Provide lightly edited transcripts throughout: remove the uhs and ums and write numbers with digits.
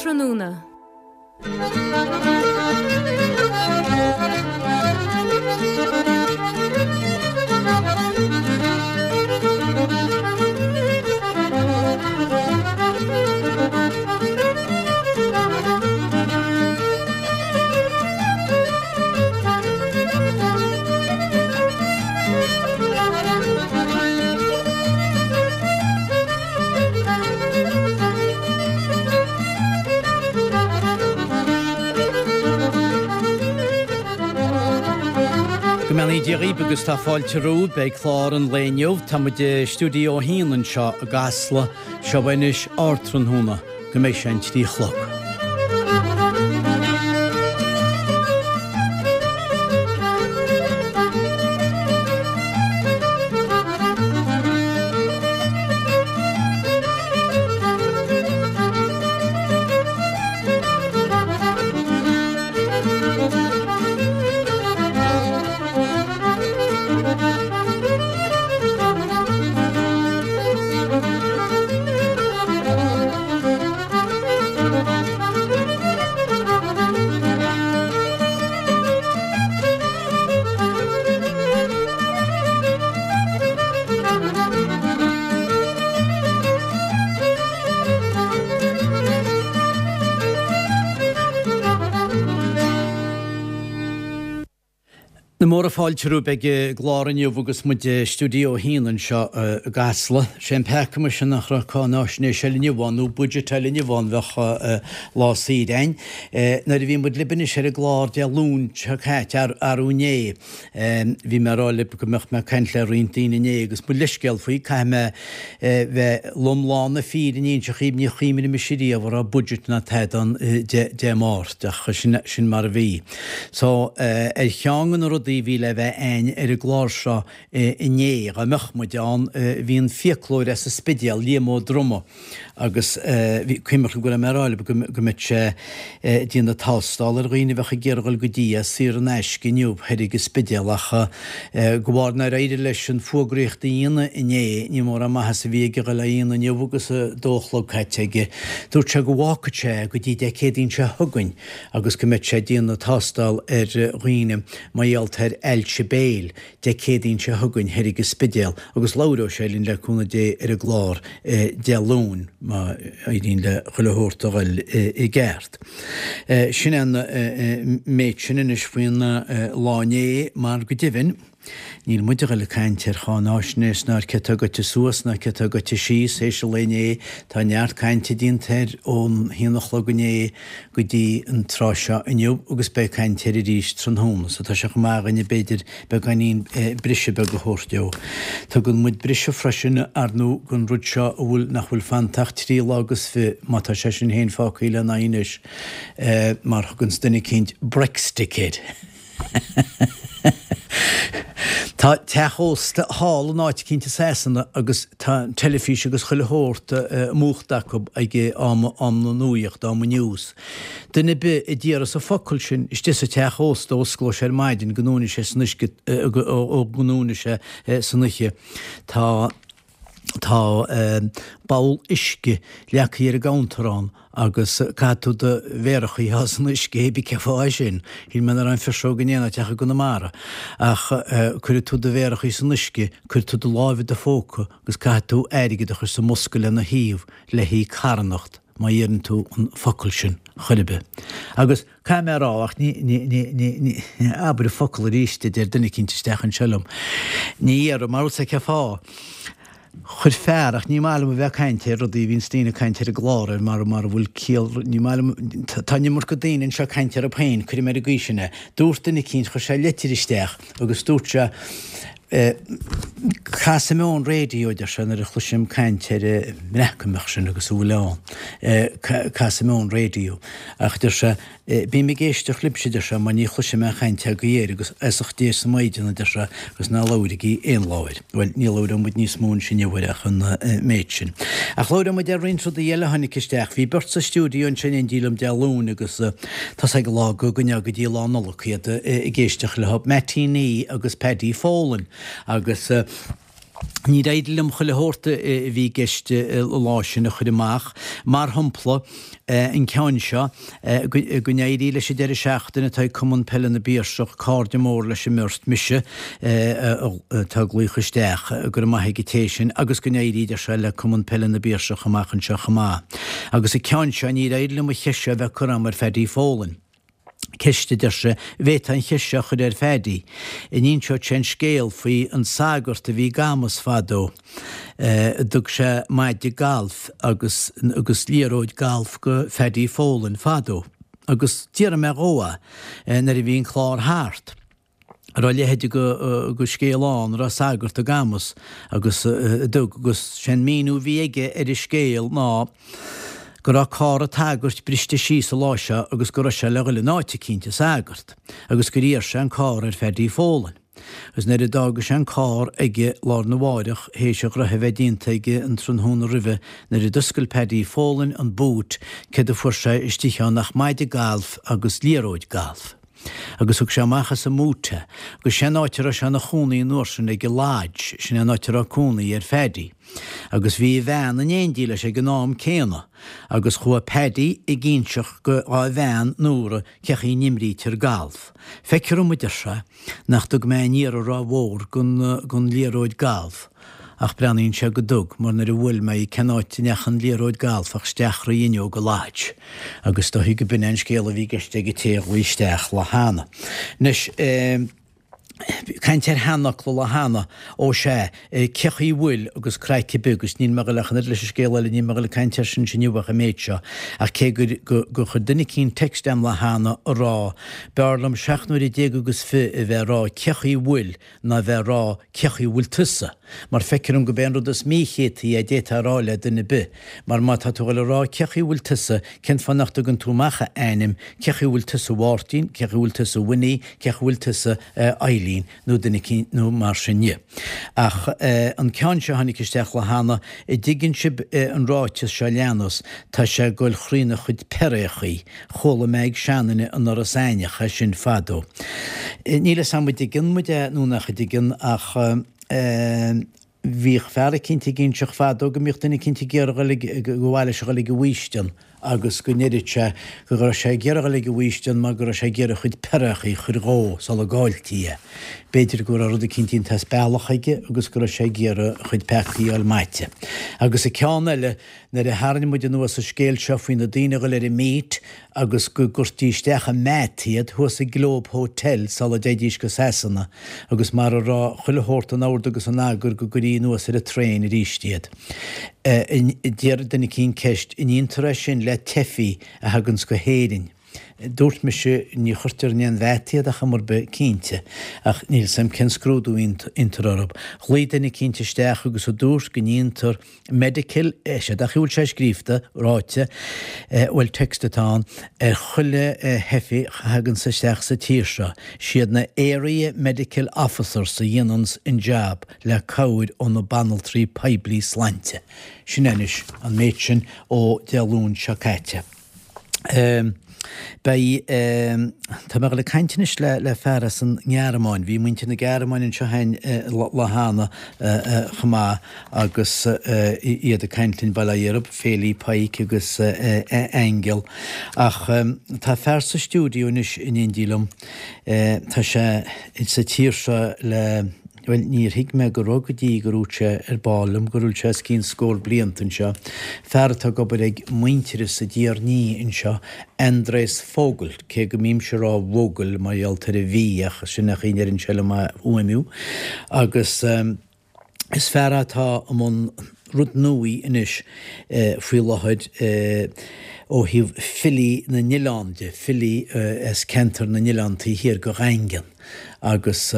Ardtráthnóna. Go mbeannaí Dia dhaoibh agus tá fáilte romhaibh. Beidh clár an lae inniu. Tá muid i Stiúideo 1 anseo i gCasla. Seo anois Ardtráthnóna go mbeidh sé an 3 a chlog. Na móra fáilte romhaibh ag an gclár inniu agus muid i Stiúideo 1 anseo i gCasla. Sé an peaca muise nach raibh cáináisnéis eile inniu ann nó budget eile inniu ann bheadh lá saoire a'inn. Nuair a bhí muid libh anois ar an gclár Dé Luain seo caite, arú inné, Bhí mé ag rá libh go mbeadh mé ag caint le roinnt daoine inné agus mo leithscéal faoi, caithfidh mé bheith lom lán na fírinne a inse dhaoibh, ní chuimhnigh mise riamh a raibh budget ná tada ann Dé Máirt, ach sin mar a bhí. So, ar cheann de na rudaí a bhí le bheith a'inn ar an gclár seo inné, dá mbeadh muid ann, bhí an fiaclóir as an Spidéal, Liam Ó Droma, Agus bhí, cuimhnigh go raibh mé ag rá libh go mbeadh sé ag déanamh tástáil ar dhaoine a bheadh ag iarraidh dhul go dtí é saor in aisce inniu thoir ag an Spidéal ach de bharr nár éirigh leis an fuagraíocht a dhéanamh inné, ní mórán maitheas a bhí aige dhul á dhéanamh inniu agus a dó a chlog caite aige. Dúirt sé go bhfágfadh sé go dtí Dé Céadaoin seo chugainn agus go mbeadh sé ag déanamh tástáil ar dhaoine mar gheall ar ailse béil. Dé Céadaoin seo chugainn thoir ag an Spidéal agus labhróidh sé linn le cúnamh Dé ar an gclár Dé Luain má éiríonn le chuile shórt a dhul i gceart. Sin é an méid sin anois faoin lá inné mar go deimhin níl muid a dhul ag caint ar cháináisnéis ná ar cé atá goite suas ná cé atá goite síos théis an lae inné. Tá neart cainte déanta air ón haon a chlog inné go dtí an tráth seo inniu agus beidh caint air arís tráthnóna so tá sé chomh maith againne b'fhéidir beagáinín briseadh beag a thabhairt dó. Tugann muid briseadh freisin ar ndóigh don rud seo a bhfuil nach bhfuil fanta ach 3 lá agus fi má tá sé sin féin fágtha lena aghaidh anois mar thuganns duine eicínt Brextick air. Tá teach ósta thall in áit eicínt i Sasana agus tá an teilifís agus chuile shórt múchta acu ag am am na nuaíochta, am an news. Duine ar bith a déarfas an focal sin istigh sa teach ósta ó osclóidh sé ar maidin go ndúnfaidh sé san uisce ó go ndúnfaidh sé san oíche tá tá babhal uisce leagtha ar an gcounter ann agus caithfidh tú do mhéaracha a shá san uisce, hé bí cén fáth é sin, shíl mé nach raibh an phiseog in aon áit ach i gConamara. Ach cuirfidh tú do mhéaracha san uisce, cuirfidh tú do láimh i do phóca agus caithfidh tú airgead a chur sa mbosca lena thaobh le haghaidh carthanacht má dheireann tú an focal sin chor ar bith. Agus caithfidh mé a rá, ach ní, ní, ní, ní, ní, abair an focal arís a deir duine eicínt isteach anseo liom. Ní dhéarfaidh, mar bhfuil 's a'd cén fáth. Chuir fear, ach ní maith liom a bheith ag caint ar rudaí a bhíonns daoine ag caint ar an gclár air mar mara bhfuil ciall, ní maith liom, tá an iomarca daoine anseo ag caint orthu féin, cuirfidh mé ar an gcaoi sin é. Dúirt duine eicínt, chuir sé leitir isteach agus dúirt sé, Casfaidh mé ón raidió, a deir sé, nuair a chloisim caint ar an mBreatimeacht sin agus a bhfuil ann. Casfaidh mé ón raidió. Ach, a deir sé, bím ag éisteacht libhse, a deir sé, mar ní chloisim aon chaint agaibh air agus aosach Dé is na Maighdeana, a deir sé, agus ná labhairigí aon lá air. Bhuel, ní labhróidh muid níos mó ansin inniu air ach an méid sin. Ach labhróidh muid ar roinnt rudaí eile a tháinig isteach. Bhí beirt sa stiúideo ansin in éindí liom Dé Luain agus tá's ag an lá go gcoinneoidh go dtí lá Nollag iad ag éisteacht leo, Mattie Nee agus Paddy Folan. Agus. Níor éirigh liom chuile shórt a bhí i gceist an lá sin a chur amach. Mar shampla, an ceann seo, go n-éirí leis an deireadh seachtaine atá ag Cumann Peile na bPiarsach, cairde mór leis an mbeirt, mise atá ag glaoch isteach, go raibh maith ag an té sin, agus go n-éirí, deir sé, le Cumann Peile na bPiarsach amach anseo chomh maith. Agus an ceann seo, níor éirigh liom an cheist seo a bheith curtha agam ar Phaddy Folan. Ceist, a deir sé, an bhféadfá an cheist seo a chur ar Phaddy. An inseodh sé an scéal faoi an sagart a bhí i gCamus fadó. Dtug sé maide gailf agus agus liathróid gailf go Phaddy Folan fadó. Agus d'fhiafraigh mé dhó é nuair a bhí an clár thart. raibh a leithéid de scéal ann, raibh sagart i gCamus agus a dtug, agus sé'n míniú a bhí aige ar an scéal ná go raibh carr an tsagairt briste síos an lá seo agus go raibh sé le dhul in áit eicínt, an sagart, agus gur iarr sé an carr ar Phaddy Folan. Agus nuair a d'fhága sé an carr aige lá arna mháireach, théis a ghnoithe a bheith déanta aige an tráthnóna roimhe, nuair a d'oscail Paddy Folan an boot, céard a fuair sé istigh ann ach maide gailf agus liathróid gailf. Agus thug sé amach as an mboot é. Agus sé an áit a raibh sé ina chónaí an uair sin ag an Lodge, sin é an áit a raibh cónaí ar Phaddy. Agus bhí a bhean in éindí leis ag an am céanna. Agus chuaigh Paddy ag inseacht go dhá bhean Nóra cé chaoi n-imrítear galf. Feictear dom, a deir sé, nach dtug mé aon iarraidh ró-mhór gon liathróid galf, ach breathnaíonn sé go dtug, mar nuair a bhuail mé í cén áit a ndeacha an liathróid galf ach isteach thrí fhuinneog an Lodge. Agus is dóichí go b'in é an scéal a bhí i gceist ag an té a ghlaoigh isteach lá cheana. Anois, caint ar sheanfhocla lá cheana, ó sea, cé chaoi a bhfuil agus craic ar bith agus níl mé ag dul ach an oiread leis an scéal eile, níl mé ag dul ag caint air sin inniu ach an méid seo, ach cé gur gur chuir duine eicínt text a'm lá cheana a rá, b'fhearr liom seacht n-uaire déag agus fi a bheith a rá cé chaoi a bhfuil ná a bheith a rá cé chaoi a bhfuil tusa, mar feictear dom go b'é an rud is míchéataí é a d'fhéadfá a rá le duine ar bith, mar má tá tú ag dul a rá cé chaoi a bhfuil tusa, cén fáth nach dtugann tú amach a ainm, cé chaoi a bhfuil tusa a Mháirtín, cé chaoi a bhfuil tusa a Winnie, cé chaoi a bhfuil tusa a Eileen, nó duine eicínt nó mar sin dhe. Ach an ceann seo a tháinig isteach lá cheana, a dtuigeann sibh an ráiteas seo leanas, tá sé ag goil thrína chuid peiréachaí. Chuala mé ag seanduine in Iorras Aithneach é sin fadó. Níl a fhios agam an dtuigeann muid é nó nach dtuigeann ach bhíodh fear eicínt ag inseacht fadó go mbíodh duine eicínt ag iarraidh dhul ag, go mhaith leis a dhul ag an bhfaoistean agus go ndeireadh sé go raibh sé ag iarraidh dhul ag an bhfaoistean mar go raibh sé ag iarraidh a chuid peiréachaí a chur dhó sula gcailltí é. B'fhéidir go raibh rud eicínt déanta as bealach aige agus go raibh sé ag iarraidh a chuid peacaí a fháil maite. Agus an ceann eile, Nuair a tharraing muid anuas an scéal seo faoi na daoine a ghoil ar an meet agus go gcuirtí isteach i meat iad thuas i Globe Hotel sula dtéidís go Sasana agus mar a raibh chuile shórt in ord agus in eagar go gcuirí anuas ar an traein arís iad. D'iarr duine eicínt ceist, an ndéantar é sin le teifigh a thaganns go hÉirinn? Dúirt mise, ní chuirtear in aon mheat iad ar chuma ar bith, cinnte, ach níl 's a'm cén scrúdú a dhéantar orthu. Ghlaoigh duine eicínt isteach agus a dúirt go ndéantar medical, sé dach a bhfuil sé scríofa, ráite, bhuel text atá ann, ar chuile theifigh a thaganns isteach sa tír seo. Siad na Area Medical Officers a dhéananns an jab le cabhair ó na banaltraí poiblí slainte. Sin é anois an méid sin ó Dé Luain seo caite. Beidh, tá mé ag dul ag caint anois le le fear as an nGearmáin. Bhí muintir na Gearmáine anseo féin lá cheana chomh maith agus iad ag caint linn, bail ó Dhia orthu, Féilí Pike agus Aingeal. Ach tá fear sa stiúideo anois in éindí liom. Tá sé sa tír seo le. Bhuel, níor thuig mé go raibh go dtí gur dhúirt sé ar ball liom go bhfuil sé os cionn scór blianta anseo, fear atá ag obair ag Muintearas i dTír an Fhia anseo, Andres Vogel, cé go mbímse ag rá Vogel mar gheall ar an V ach sin é an chaoi a ndeireann sé liom é a fhuaimniú. Agus is fear é atá i mbun rud nuaí anois faoi láthair ó thaobh filí na n-oileán de, filí as ceantar na n-oileán taobh thiar de Dhaingean agus.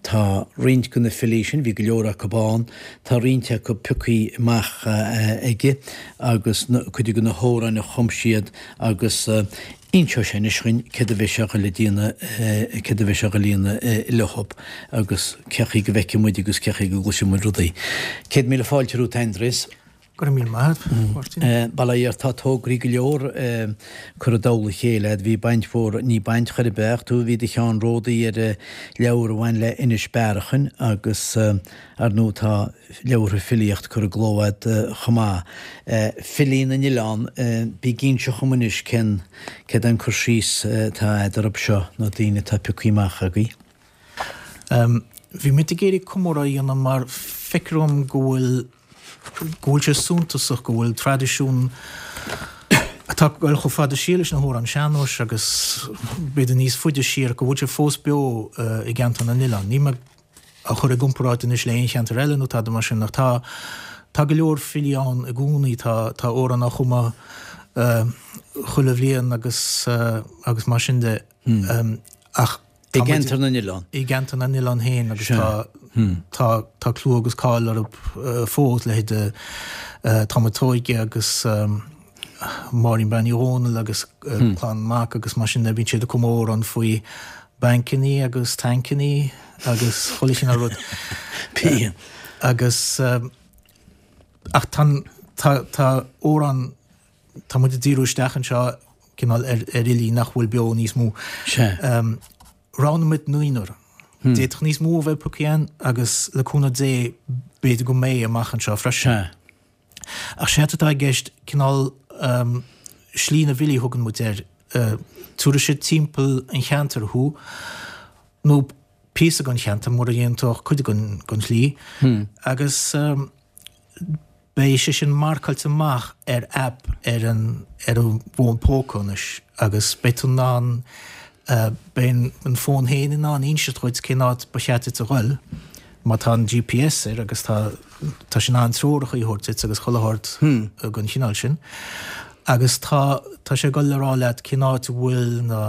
Tá roinnt de na filí sin, bhí go leor acu ann, tá roinnt acu piocthaí amach aige agus cuid de na hamhráin a chum siad agus inseoidh sé anois dhuinn céard a bheidh sé a ghoil a déanamh, céard a bheidh sé a ghoil a dhéanamh leothab agus cé chaoi go bhfeicfidh muid agus cé chaoi go gcloisfidh muid rudaí. 100,000 fáilte romhat, Andreas. Go raibh míle maith agat, Máirtín. Bail ó Dhia ort, tá tograí go leor curtha i dtoll a chéile agat. Bhí baint mhór, ní baint chor ar bith ach tú, bhí do cheannródaí ar leabhar a bhain le Inis Bearachain agus ar ndóigh tá leabhartha filíocht curtha i gcló agat chomh maith. Filí na nOileán, bí ag inse dhom anois cén, céard é an cur síos atá agat orthu seo, na daoine atá pioctha amach agaibh. Bhí muid ag iarraidh comóradh a dhéanamh mar feictear dhom go bhfuil go bhfuil sé suntasach go bhfuil traidisiún atá ag dul chomh fada siar leis na hamhráin sean-nóis agus b'fhéidir níos faide siar, go bhfuil sé fós beo i gceantar na n-oileán. Níl mé á chur i gcomparáid anois le aon cheantar eile nó tada mar sin ach tá tá go leor filí ann i gcónaí, tá tá amhráin á chumadh chuile bhliain agus agus mar sin de. Ach I gceantar na n-oileán. I gceantar na n-oileán féin agus tá tá tá clú agus cáil orthu fós, leithéide Tom a' tSóige agus Máirín Bean Uí Dhónaill agus Clann Mac agus mar sin de, bíonn siad ag cumadh amhrán faoi bancannaí agus tancannaí agus chuile chineál rud. Bíonn. Agus ach tá tá tá amhráin Tá muid ag díriú isteach anseo cineál ar fhilí nach bhfuil beo níos mó. Sea. Roghnaigh muid naonúr. D'fhéadfadh níos mó a bheith pioctha againn agus le cúnamh Dé b'fhéidir go mbeidh amach anseo freisin. Sea. Ach séard atá i gceist cineál slí na bhfilí a thugann muid air. Tabharfaidh sé timpeall an cheantair thú nó píosa den cheantar mura ndéanann tú ach cuid den shlí agus Beidh sé sin marcáilte amach ar aip ar an ar an bhfón póca anois agus beidh tú in ann beidh an fón féin in ann inseacht dhuit cén áit ba cheart duit a dhul má tá an GPS air agus tá tá sé in ann treoracha a thabhairt duit agus chuile shórt den chineál sin agus tá tá sé ag dul le rá leat cén áit a bhfuil na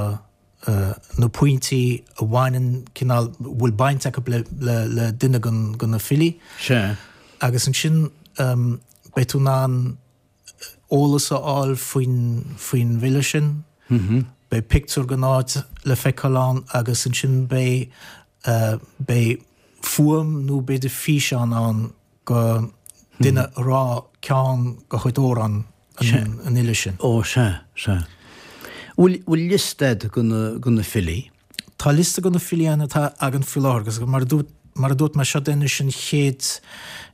na pointí a bhaineann cineál, bhfuil baint acu le, le, le duine den, de na filí. Sea. Agus ansin beidh tú in ann eolas a fháil faoin, faoin bhfile sin. Beidh pictiúr den áit le feiceáil ann agus ansin beidh, beidh fuaim nó b'fhéidir físeán ann go duine ag rá ceann de chuid amhrán an fhile sin. Ó, sea, sea. Bhfuil, bhfuil liosta agat de na, de na filí? Tá liosta de na filí ann atá againn faoi láthair agus mar a dúirt, mar a dúirt mé, seo anois an chéad,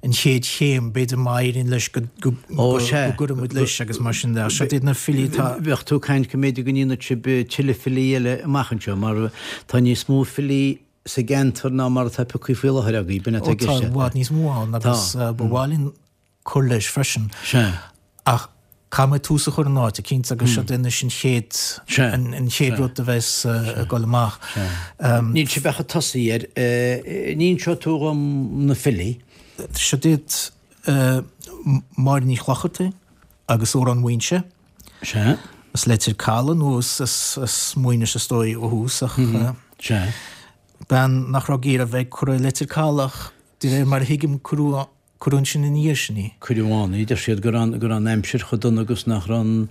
an chéad chéim, b'fhéidir má éiríonn leis go, go, Ó, sea. go gcuirfidh muid leis agus mar sin de. Ach seo iad na filí atá. Bheadh tú ag caint go mb'fhéidir go ndéanfadh sibh tuilleadh filí eile amach anseo mar tá níos mó filí sa gceantar ná mar atá pioctha faoi láthair agaibh, b'in atá i gceist. Ó, tá i bhfad níos mó ann agus ba mhaith linn cur leis freisin. Sea. Ach caithfidh muid tús a chur in áit eicínt agus seo anois an chéad, an chéad rud a bheas ag dul amach. Níl sibh ach ag tosaí air. An inseoidh tú dhom na filí? Seo iad Máire Ní Chlochartaigh agus Amhrán Mhaínse. Sea. As Leitir Caladh nó as Maínis is dóigh ó thús ach. Sea. Bean nach raibh ag iarraidh a bheith curtha i Leitir Caladh ach de réir mar a thuigim cuireadh cuireadh ansin ina dhiaidh sin í. Cuireadh ann í. Deir siad go raibh go raibh an aimsir chomh dona agus nach raibh an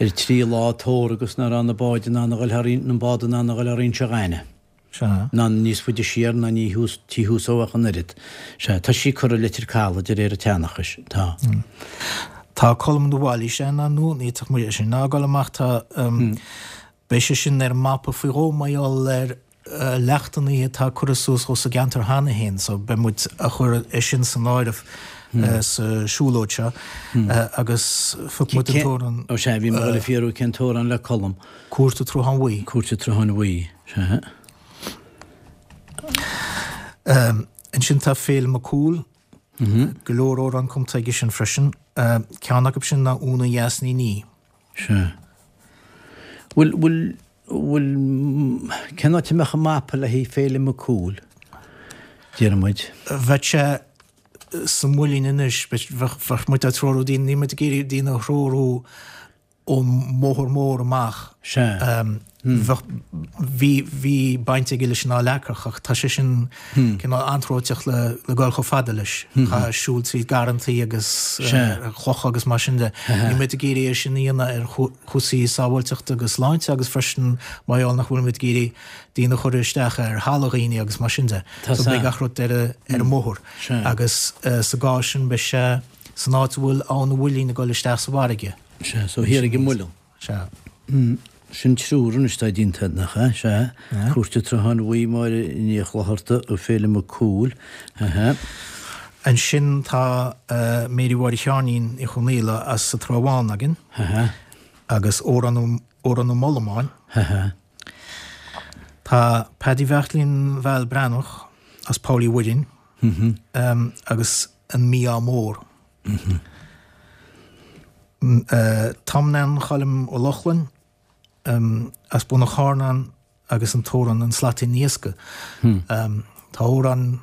ar an tríú lá tórramh agus nach raibh na báid in ann a dhul thar an bád in ann a dhul thar Inse Ghainimh. Sea. Ná níos faide siar ná ní thuas, tí thuas ó ach an oiread. Sea, tá sí curtha i Leitir Caladh de réir an tseanchais. Tá. Tá Colm de Bhailís ann ar ndóigh, ní fhéadfadh muid é sin a fhágáil amach. Tá, beidh sé sin ar an mapa faoi dhó mar gheall ar leachtannaí atá curtha suas dhó sa gceantar cheana féin so beidh muid a chur é sin san áireamh sa siúlóid seo agus phioc muid an t-amhrán. Ó sea, bhí mé ag dul a fiafraí cén t-amhrán le Colm. Cúirt an tSrutháin Bhuí. Cúirt an tSrutháin Bhuí, sea. Ansin tá Féilim Mac Cumhaill. Go leor amhrán cumtha aige sin freisin. Ceann acu sin ná Úna Dheas Ní Ní. Sea. Bhfuil, bhfuil, bhfuil, cén áit a mbeadh an mapa le haghaidh Féilim Mac Cumhaill, déarfaidh muid? Bheadh sé sa Mhuileann anois, bheadh muid ag treorú daoine, níl muid ag iarraidh daoine a threorú ón mbóthar mór amach. Sea. Bheadh, bhí, bhí baint aige leis an Fhál Eachach ach tá sé sin cineál anróiteach le, le dul chomh fada leis. Chaithfeá siúl tríd garrantaí agus clocha agus mar sin de. Níl muid ag iarraidh é sin a dhéanamh ar chúrsaí sábháilteachta agus sláinte agus freisin mar gheall nach bhfuil muid ag iarraidh daoine a chur isteach ar thalamh dhaoine agus mar sin de. So beidh gach rud ar, ar an mbóthar. Agus sa gcás sin beidh sé. San áit a bhfuil Abhainn an Mhuilinn ag dul isteach sa bhfarraige. Sea, so thiar ag an Muileann. Sea. Sin triúr anois atá déanta, nach ea? Sea. Cúirt an tSrutháin Bhuí, Máire Ní Chlochartaigh, Féilim Mac Cumhaill. Aha. Ansin tá Mary Mháire Sheáinín Uí Chonghaile as an Trá Bháin againn. Aha. Agus Órán Órán na Molamáin. Aha. Tá Paddy Bheairtlín Val Breathnach as Poll Uí Mhuirinn agus an Mí-ádh Mór. Tom Nan Choilm Ó Lochlainn as Bun an Charnáin agus an t-amhrán An Slaitín Iascaigh. Tá amhrán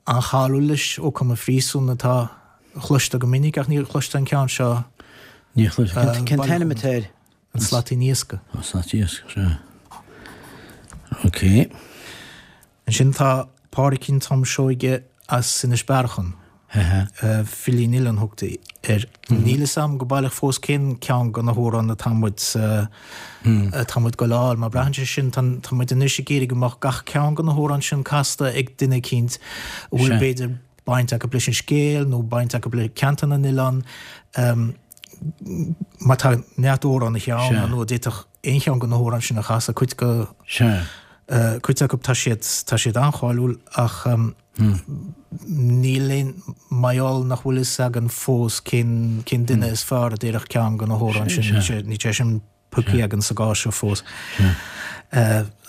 an-cháiliúil leis ó cumadh i phríosún atá chloiste go minic ach níor chloiste an ceann seo. Níor chloiste. Cén t-ainm atá air? An Slaitín Iascaigh. An Slaitín Iascaigh, sea. Ok. Ansin tá Pádraicín Tom Seoige as Inis Bearachain. Filí an Oileáin thugtaí air. Níl fhios a'm go baileach fós cén ceann de na hamhráin atá muid atá muid ag goil a fháil, mar braitheann sé sin, tá muid anois ag iarraidh go mbeadh gach ceann de na hamhráin sin casta ag duine eicínt a bhfuil b'fhéidir baint acu leis an scéal nó baint acu le ceantar na n-oileán. Mar tá neart amhránaithe ann nó d'fhéadfadh aon cheann de na hamhráin sin a chasadh, cuid de cuid acu tá siad tá siad an-cháiliúil ach níl aon mar gheall nach bhfuil fhios againn fós cén cén duine is fearr a d'oirfeadh ceann de na hamhráin sin, níl sé níl sé sin pioctha againn sa gcás seo fós.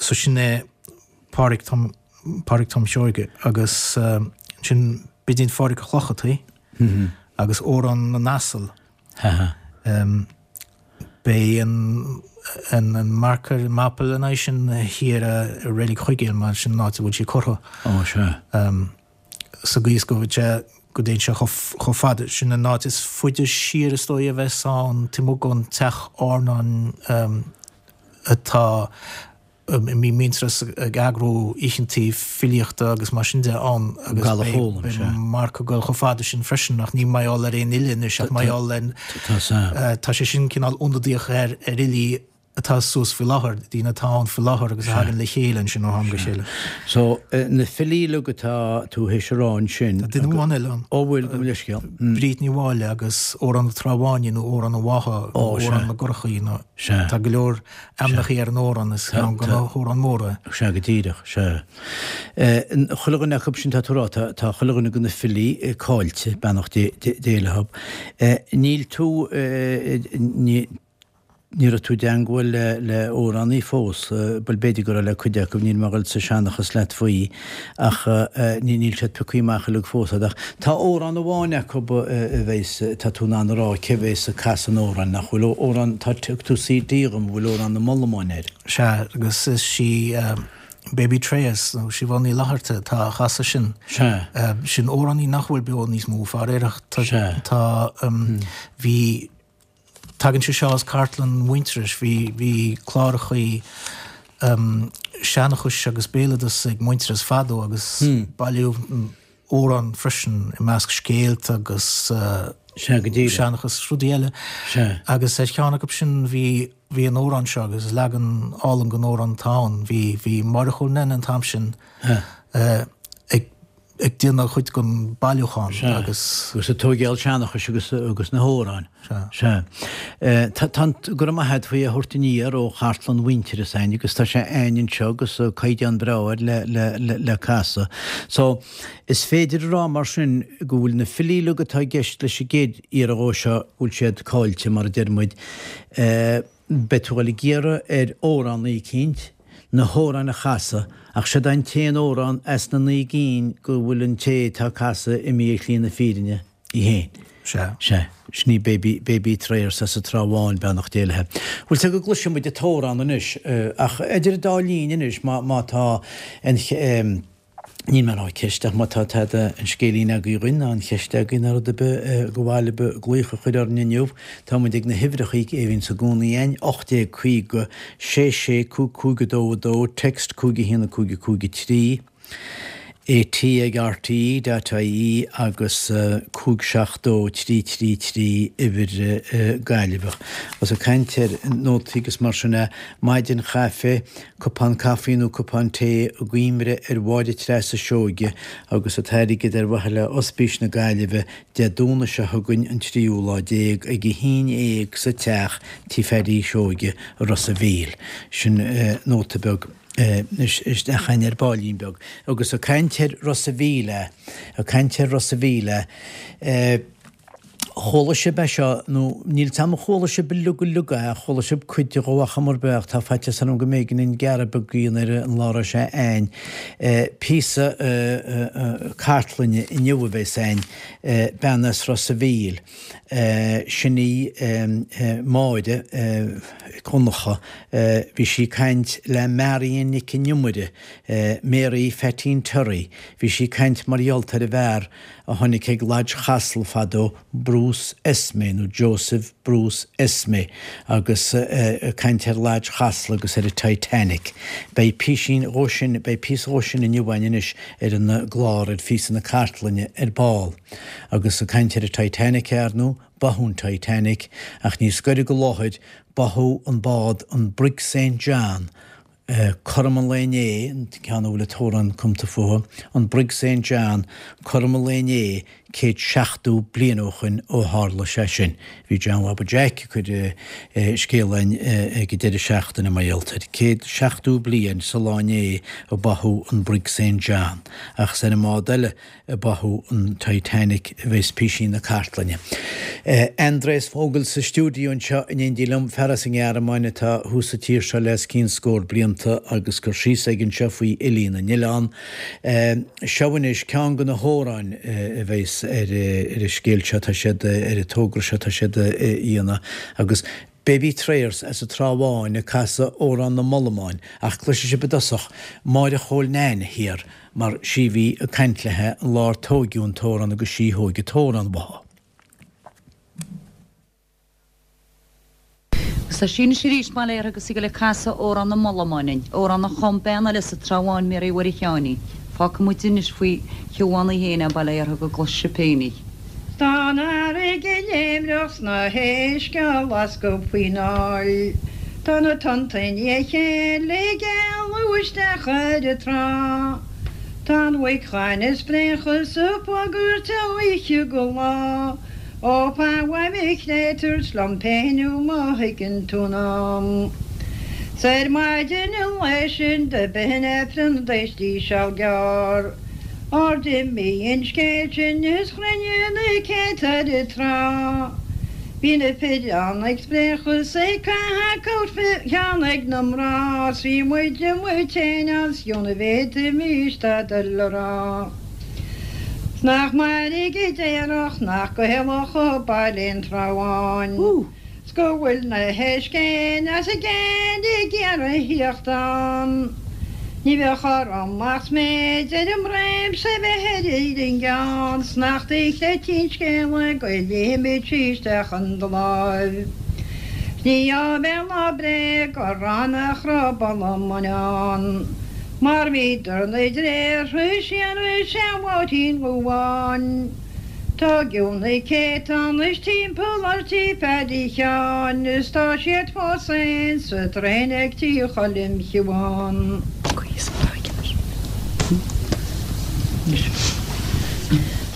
So sin é Pádraig Tom Pádraig Tom Seoige agus ansin Bidín Phádraig Ó Clochartaigh agus Amhrán na nAsal. Beidh an an marker, an mapa lena aghaidh sin thiar i Reilig Chuigéil mar sin an áit a bhfuil sí curtha. Ó, sea. Sa gcaoi is go bhfuil sé, go dtéann sé chomh fada, sin an áit is faide siar is dóigh a bheas ann, taobh amuigh den teach airneáin atá a mbíonn Muintearas ag eagrú oícheantaí filíochta agus mar sin de ann agus beidh marc ag dul chomh fada sin freisin ach ní mar gheall ar aon fhile anois ach mar gheall ar tá sé sin cineál ionadaíoch ar ar fhilí atá suas faoi láthair, daoine atá ann faoi láthair agus a thagann le chéile ansin ó am go chéile. So, na filí uilig atá tú théis a rá ansin. Tá duine amháin eile ann. Ó bhfuil, gabh mo leithscéal. Bríd Ní Mháille agus Amhrán na Trá Báine nó Amhrán an Bhátha nó Amhrán na gCurachaí nó tá go leor Ainmneacha ar an amhrán, is ceann de na hamhráin mhóra é. Sea, go díreach, sea. Chuile dhuine acu sin tá tú a rá, tá chuile dhuine de na filí cáilte, beannacht Dé leo. Níl tú, ní raibh tú i dteangmháil le le amhránaí fós, bhuel b'fhéidir go raibh le cuid acu, níl mé ag dul sa seanchas leat faoi. Ach níl siad pioctha amach uilig fós a'd. Ach tá amhrán amháin acu a bheas, tá tú in ann a rá cé bheas ag casadh an amhráin, nach bhfuil? Amhrán, tá, thug tú CD dhom a bhfuil Amhrán na Molamáin air. Sea, agus is í Baby Treas, nó Siobhán Ní Fhlatharta atá á chasadh sin. Sea. Sin amhránaí nach bhfuil beo níos mó, faraor, ach tá, Sea. tá, bhí, Tagann sé seo as cartlann Mhuintearais. Bhí, bhí clárachaí seanchais agus béaloideas ag Muintearas fadó agus bailíodh amhráin freisin i measc scéalta agus Sea, go díreach. seanchas, rudaí eile. Sea. Agus ar cheann acu sin bhí, bhí an amhrán seo agus is leagan álainn den amhrán atá ann. Bhí, bhí Máire Chóil Nene an t-am sin ag ag déanamh chuid den bailiúchán Sea. agus. Agus ag tóigeáil seanchais agus agus na hamhráin. Sea. Sea. Tá, tá an, go raibh maith a't faoi a thabhairt aniar ó chartlann Mhuintearas a'ainn agus tá sé a'ainn anseo agus caighdeán breá air le, le, le, le casadh. So, is féidir a rá mar sin go bhfuil na filí uilig atá i gceist leis an gcéad iarraidh dhó seo, go bhfuil siad cáilte mar a deir muid. Beidh tú a dhul ag iarraidh ar amhránaí eicínt na hamhráin a chasadh, ach siod é an t-aon amhrán as na naoi gcinn go bhfuil an té atá ag casadh imithe ar shlí na fírinne í féin. Sea. Sea. Sin í Baby, Baby Trayers as an Trá Bháin, beannacht Dé léi. Bhfuil 's agat go gcloisfidh muid an t-amhrán anois, ach idir an dá linn anois, má, má tá an, Níl mé ag rá ceist ach má tá tada an scéilín agaibh dhuinn ná an cheist agaibh ná rud ar bith go mhaith libh glaoch a chur orainn inniu, tá muid ag na huimhreachaí a bhíonns i gcónaí a'ainn, 1850 6 6 5 5 2 2, text 5 1 5 5 3. AT ag RTE dot ie agus 5 7 2 3 3 3 uimhir Gaillimheach. Agus ag caint ar nótaí agus mar sin é, maidin chaife, cupán caife nó cupán tae i gcuimhne ar Mháire Treasa Seoige agus an t-airgead ar mhaithe le Ospís na Gaillimhe Dé Domhnaigh seo chugainn an tríú lá déag ag a haon dhéag sa teach Tí Phaddy Seoige i Ros a' Mhíl. Sin nóta beag. isteach againn ar baillín beag. Agus ag caint ar Ros a' Mhíl, ag caint ar Ros a' Mhíl, chuala sibh é seo, nó níl 's a'm an chuala sibh uilig uilig é, chuala sibh cuid de dhó ar chuma ar bith ach tá faitíos orm go mb'éigean an gearradh beag a dhéanamh ar an lá a raibh sé a'ainn. Píosa cartlainne inniu a bheas a'ainn, bean as Ros a' Mhíl. Sin í Máire Mhic Dhonncha. Bhí sí ag caint le Marion Nic an Iomaire, Mary Pheaitín Terry. Bhí sí ag caint mar gheall ar an bhfear a tháinig ag Lodge Chasla fadó, Bruce Esmé nó Joseph Bruce Esmé agus ag caint ar Lodge Chasla agus ar an Titanic. Beidh písín dhó sin, beidh píosa dhó sin inniu againn anois ar an gclár ar phíosa na cartlainne ar ball. Agus ag caint ar an Titanic, ar ndóigh, báthadh an Titanic, ach níos gaire go láthair, báthadh an bád an Brig Saint John, cothrom an lae inné, an ceann a bhfuil an t-amhrán cumta fúthu, an Brig Saint John, cothrom an lae inné, 170 bliain ó shoin ó tharla sé sin. Bhí John Bhaba Jack ag cur scéal a'inn ag an deireadh seachtaine mar gheall air. 170 bliain sa lá inné a báthadh an Brig Saint John. Ach is ar an mbád eile a báthadh an Titanic a bheas písín na cartlainne. Andreas Vogel sa stiúideo anseo in éindí liom, fear as an nGearmáin atá thuas sa tír seo le os cionn scór blianta agus cur síos aige anseo faoi fhilí na n-oileán. Seo anois ceann de na hamhráin a bheas ar an scéal seo atá siad, ar an togra seo atá siad a dhéanamh agus Baby Trayers as an Trá Bháin ag casadh Amhrán na mBollamán ach cloisfidh sibh i dtosach Máire Chóil Nan thiar mar sí a bhí ag caint léithe an lá ar tóigeadh an t-amhrán agus sí a thóig an t-amhrán uathu. Agus tá sí anois arís, bail uirthi, agus í ag goil ag casadh Amhrán na mBollamán dúinn, amhrán a chum bean eile sa Trá Bháin, Mary Mhuire Sheáinín. Fágfaidh muid anois faoi Shiobhán í féin é, bail uirthi, go gcloisfidh sibh féin í. 'S tá an fharraige léimreach 's na héisc á lascadh faoin aill. Tá na tonnta i ndiaidh a chéile ag éalú isteach ar an trá. Tá an mhuic ghainimh ag spréachadh 's ag bagairt ó oíche go lá. Ó fan uaim a chréatúir 's liom féin thú má thuigeann tú an am. 'S ar maidin an lae sin do b'shin Aifreann d'éistí seal gearr. Óir d'imigh an scéal sin is chruinnigh na céadta ar an trá. Bhí na fir ann ag spréachadh 's ag caitheamh coat cheann ag na mná 's bhí muid amuigh tinn ann 's fiú na bhféadfaimis tada le rá. 'S nach mairg a déarfadh nach Gaelach ó baile an Trá Bháin. 's go bhfuil na héisc fhéin as a gcéin ag iarraidh thíocht ann. Ní bheadh orm ach sméid ar an mbroim 's é bheith ar an gceann 's nach do chreidfinn scéala go ligfimid isteach in do láimh. 'S ní áibhéil ná bréag a rá nach raibh bollamáin ann mar bhíodar 'na dtréartha siar i sean-Mháirtín Dhubháin. Tóigeadh na céadta anois timpeall ar tí Phaddy Sheáin is tá siad fós féin sa traein ag tí Choilm Shiobhán.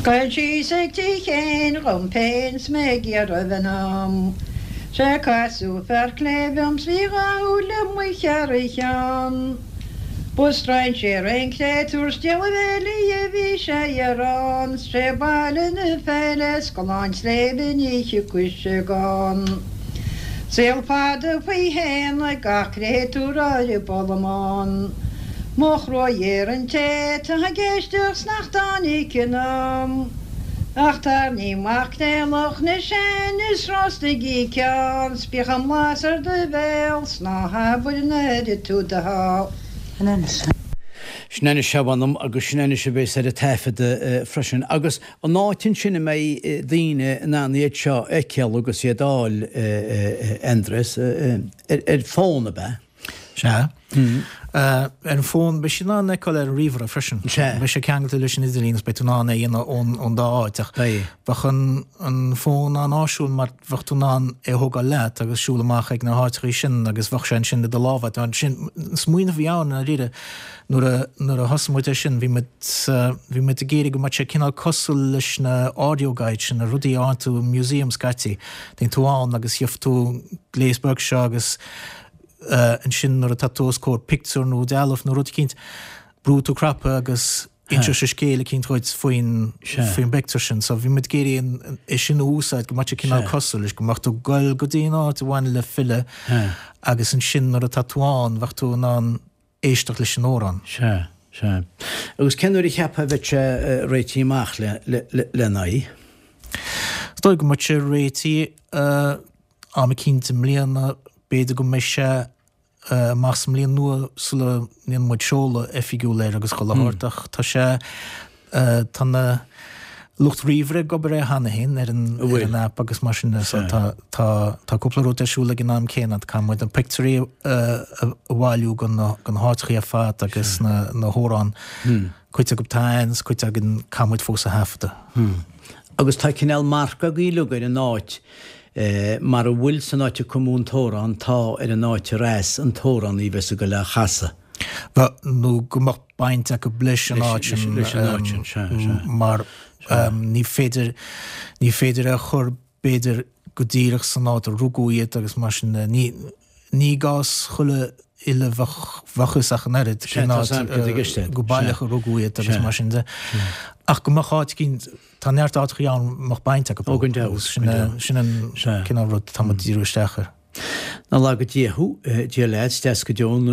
Ghoil síos ag tí Chéin dhom féin 's mé ag iarraidh bheith ann. 'Sé casadh fear cléibh orm 's bhí dhá shúil amuigh thar a cheann. Ba strainséir é an créatúr 's díol a bhéilí a bhí sé ar an 's sé baile na Féile 's Gleann tSléibhe ní thiocfadh sé gann. Saol fada faoi shéan ag gach créatúr ar an bollamán. Mo thruaigh ar an té atá ag éisteacht 's nach dtáinig in am. Ach tarraing maicréalach na sean is rostaigí ceann 's bíodh an blas ar do bhéal 's ná habair nár ith tú do sháith. Sin anois a mh'anam agus sin anois a bheas ar an taifead freisin. Agus an áit ansin a mbeidh daoine in ann iad seo a fheiceáil agus iad a fháil, a Aindreas, ar fón, ab ea? Sea. Ar an bhfón, beidh sé in ann feiceáil ar an ríomhaire freisin. Sea. Beidh sé ceangailte leis an idirlíon agus beidh tú in ann é a dhéanamh ón dá áit ach Beidh. bheadh an fón an-áisiúil mar bheadh tú in ann é a thógáil leat agus siúl amach ag na háiteachaí sin agus bheadh sé ansin i do lámha. Sin an smaoineamh a bhí ann i ndáiríre nuair a nuair a thosaigh muid air sin bhí muid bhí muid ag iarraidh go mbeadh sé cineál cosúil leis na audio guides sin, na rudaí a fhaigheann tú i museum scaití. Téann tú ann agus gheobhaidh tú gléas beag seo agus ansin nuair atá tú os comhair pictiúr nó dealbh nó rud eicínt, brúfaidh tú cnaipe agus inseoidh sé scéal eicínt dhuit faoin faoin bpictiúr sin. So bhí muid ag iarraidh é sin a úsáid go mbeadh sé cineál cosúil leis, go mbeadh tú ag goil go dtí an áit a bhaineann le file agus ansin nuair atá tú ann bheadh tú in ann éisteacht leis an amhrán. Sea, sea. Agus cén uair a cheapfá a bheidh sé réitithe amach le lena aghaidh? Is dóigh go mbeidh sé réitithe am eicínt i mbliana, b'fhéidir go mbeidh sé amach sa mbliain nua sula ndéanann muid seoladh oifigiúil air agus chuile shórt ach tá sé, tá na lucht ríomhaire ag obair air cheana féin ar an ar an app agus mar sin de so tá tá tá cúpla rud ar siúl ag an am céanna, caithfidh muid na pictiúirí a bhailiú go na go na háiteachaí ar fad agus na na hamhráin, cuid acu tá ann is cuid againn caithfidh muid fós a thaifeadadh. Agus tá cineál marc agaibh uilig ar an áit Mar a bhfuil san áit a cumadh an t-amhrán tá ar an áit ar as an t-amhránaí a bheas ag goil á chasadh. Bheadh, nó go mbeadh baint acu leis an áit sin, Leis an áit sin, sea, sea. mar ní féidir, ní féidir é a chur b'fhéidir go díreach san áit a rugadh iad agus mar sin de. Ní, ní i gcás chuile fhile bheadh, bheadh fhios ach an oiread cén áit go baileach a rugadh iad agus mar sin de. Ach go mbeadh áit eicínt, Tá neart áiteachaí ann a mbeadh baint acu. Ó, gan dabht. Sin sin an cineál rud atá muid ag díriú isteach air. Nach laga Dia thú, Dia leat, is deas go deo an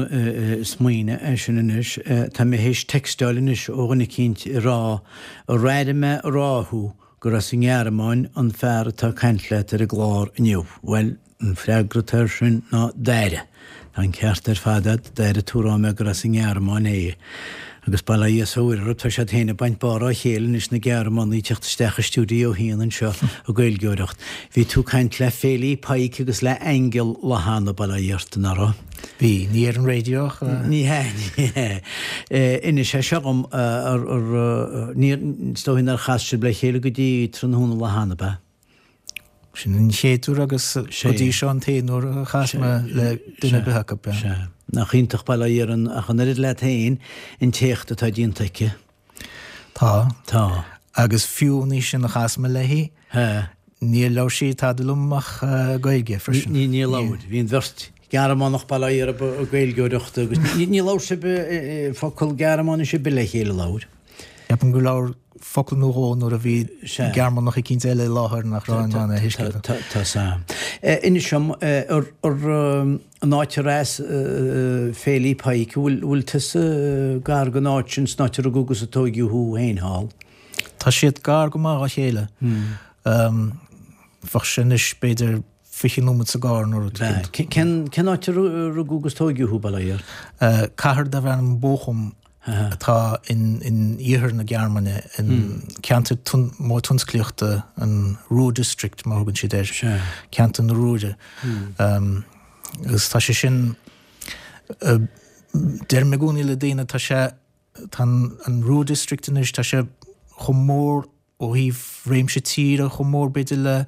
smaoineamh é sin anois. Tá mé théis textáil anois ó dhuine eicínt ag rá, ar airigh mé ag rá thú gur as an nGearmáin an fear atá ag caint leat ar an gclár inniu. Bhuel, An freagra atá air sin ná d'airigh. Tá an ceart ar fad agat, d'airigh tú a rá mé gur as an nGearmáin é. Agus bail ó Dhia is ó Mhuire orthu, tá siad féin ag baint barr á chéile anois, na Gearmánaigh ag teacht isteach i stiúideo a haon anseo ag Gaeilgeoireacht. Bhí tú ag caint le Féilí Pike agus le Aingeal lá cheana, bail ó Dhia ort, nach raibh? Bhí. Ní ar an raidió ach. Ní hea, ní hea. Inis é seo dhom, ar, ar, níor, is dóigh nár chas sibh le chéile go dtí tráthnóna lá cheana, ab ea? Sin an chéad uair agus go dtí seo an t-aon uair a chas mé le duine ar bith acu. Sea. Nach iontach bail ó Dhia uirthi ach an oiread leat féin an t-éacht atá déanta aici. Tá. Tá. Agus fiú an oíche sin a chas mé léi, níor labhair sí tada liom ach Gaeilge freisin. Níor labhair. Bhí an bheirt Gearmánach bail ó Dhia orthu ag Gaeilgeoireacht agus níor labhair sibh focal Gearmáinise ar bith le chéile, labhair? Ceapaim gur labhair focal nó dhó nuair a bhí Gearmánach eicínt eile i láthair nach raibh in ann é a thuiscint. Tá sam. Inis dom, ar an áit ar as Féilí Pike, an bhfuil tusa gar don áit sin, san áit a rugadh agus a tóigeadh thú féin thall? Tá siad gar go maith dá chéile. Bheadh sé anois b'fhéidir 20 nóiméad sa gcarr nó rud éicint. Cén áit a rugadh agus tóigeadh thú, bail ó Dhia ort? Cathair darbh ainm Bochum atá in iarthar na Gearmáine, in ceantar mór tionsclaíochta, an Ruhr District mar a thugann siad air, ceantar na Ruhre. Agus tá sé sin, deirim i gcónaí le daoine, tá sé, tá an Ruhr District anois, tá sé chomh mór ó thaobh réimse tíre chomh mór b'fhéidir le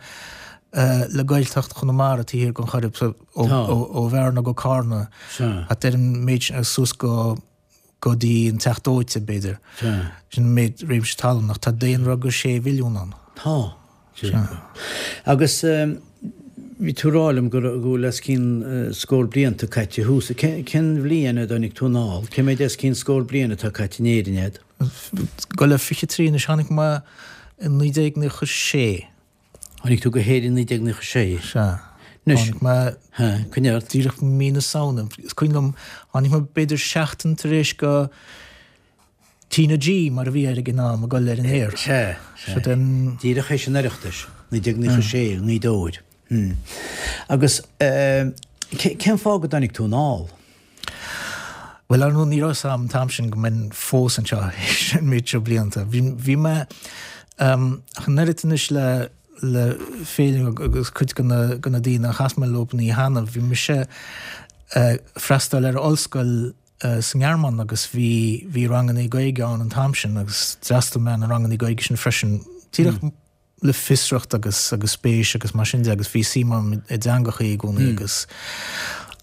le Gaeltacht Chonamara taobh thiar den Choirib so ó Bhearna go Carna thart ar an méid sin suas go go dtí an Teach Dóite b'fhéidir. Sin an méid réimse talún ach tá daonra go sé mhilliún ann. Tá. Agus bhí tú ag rá liom go bhfuil os cionn scór blianta caite thuas. Cén bhliain a dtáinig tú anall? Cé méid os cionn scór bliain atá caite in Éirinn agat? Ag dul le 23 anois, tháinig mé i 1996. Tháinig tú go hÉirinn i 1996? Sea. Anois, Tháinig mé coinnigh ort. díreach mí na Samhna. Is cuimhin liom, tháinig mé b'fhéidir seachtain tar éis go T na G, mar a bhí air ag an am, ag dul ar an aer. Sea, sea. Díreach théis an Oireachtais, 1996, i nGaoth Dobhair. Agus cén fáth go dtáinig tú anall? Bhuel, ar ndóigh, ní raibh 'fhios a'm an t-am sin go mbeinn fós anseo théis an méid seo blianta. Bhí, bhí mé, ach an oiread anois le, le Féilim agus cuid de na, de na daoine a chas mé leo an oíche cheana, bhí mise. freastal ar ollscoil sa nGearmáin agus bhí bhí rangannaí Gaeilge ann an t-am sin agus d'fhreastail mé ar na rangannaí Gaeilge sin freisin díreach le fiosracht agus agus spéis agus mar sin de agus bhí suim agam i dteangachaí i gcónaí agus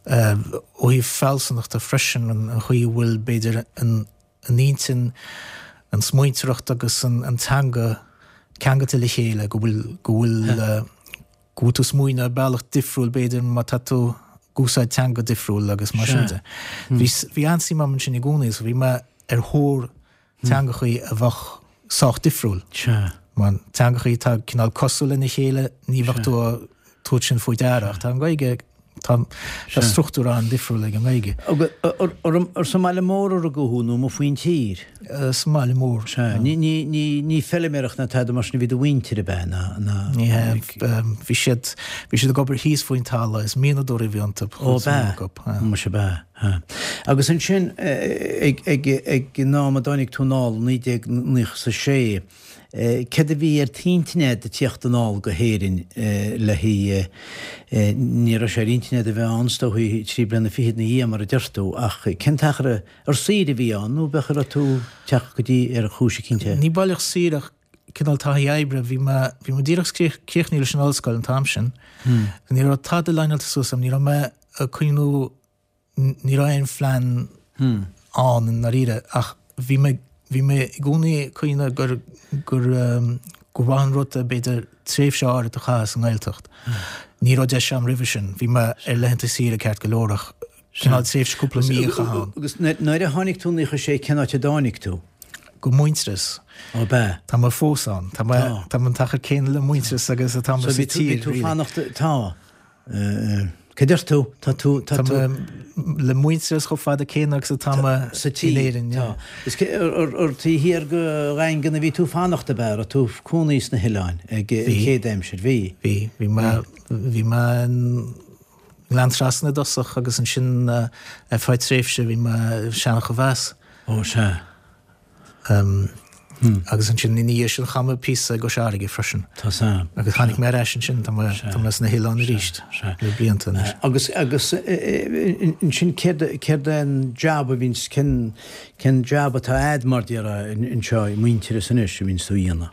ó thaobh fealsúnachta freisin an chaoi a bhfuil b'fhéidir an an intinn, an smaointeoireacht agus an teanga ceangailte le chéile, go bhfuil, go bhfuil, go bhfuil tú ag smaoineamh ar bealach difriúil b'fhéidir má tá tú ag úsáid teanga difriúil agus mar sin de. Bhí, bhí an-suim agam ansin i gcónaí so bhí mé ar thóir teangachaí a bheadh sách difriúil. Mar teangachaí atá cineál cosúil lena chéile, ní bheadh tú ag tabhairt sin faoi deara ach tá an Ghaeilge Tá struchtúr an-difriúil ag an nGaeilge. Ar sa mbaile mór a rugadh thú nó amuigh faoin tír? Sa mbaile mór. Sea. Ní feiliméireacht ná tada mar sin a bhí do mhuintir ab ea ná? Ní hea. Bhí siad bhí siad ag obair thíos faoin talamh. Is mianadóirí a bhí iontu. Ó ab ea? Muise ab ea. Agus ansin ag an am a dtáinig tú anall, 1996, Céard a bhí ar t'intinn a'd ag tíocht anall go hÉirinn le haghaidh, ní raibh sé ar intinn a'd a bheith ann is dóichí trí bliana fichead ina dhiaidh mar a deir tú, ach cén t-achar ar saoire a bhí ann nó b'fhéidir raibh tú ag teacht go dtí ar chúis eicínt? Ní baileach saoire ach cineál taithí oibre, bhí mé, bhí mé díreach críochnaithe leis an ollscoil an t-am sin. Ní raibh tada leaineáilte suas agam, ní raibh mé ag cuimhniú Ní raibh aon phlean ann i ndáiríre ach bhí mé, bhí mé i gcónaí ag cuimhneamh gur, gur, gur mhaith an rud é b'fhéidir tréimhse áirid a chaitheamh sa nGaeltacht. Ní raibh deis agam roimhe sin. Bhí mé ar laethanta saoire ceart go leor ach cineál tréimhse cúpla mí a chaitheamh ann. Agus nuair a tháinig tú 96 cén áit a dtáinig tú? Go Muintearas. Ó b'ea. Tá mé fós ann. Tá mé, tá mé an t-achar céanna le Muintearas agus atá mé sa tír. So bhí tú, bhí tú fanacht, tá. Cad deir tú? Tá tú, tá tú. Tá mé le Muintearas chomh fada céanna agus atá mé sa tír in Éirinn. Tá. Is ar taobh thiar de Dhaingean a bhí tú fanacht ab ea? Raibh tú cónaí sna hoileáin ag an chéad aimsir? Bhí. Bhí. Bhí mé, bhí mé i nGleann Trasna i dtosach agus ansin ar feadh tréimhse bhí mé i Seancha Mheas. Ó sea. Agus ansin ina dhiaidh sin chaith mé píosa i gCois Fharraige freisin. Tá san. Agus tháinig mé ar ais ansin, tá mé, tá mé sna hoileáin arís le blianta anois. Agus, agus ansin céard, céard é an jab a bhíonns, cén, cén jab atá a'd mar déarfá anseo i Muintearas anois a bhíonns tú a dhéanamh?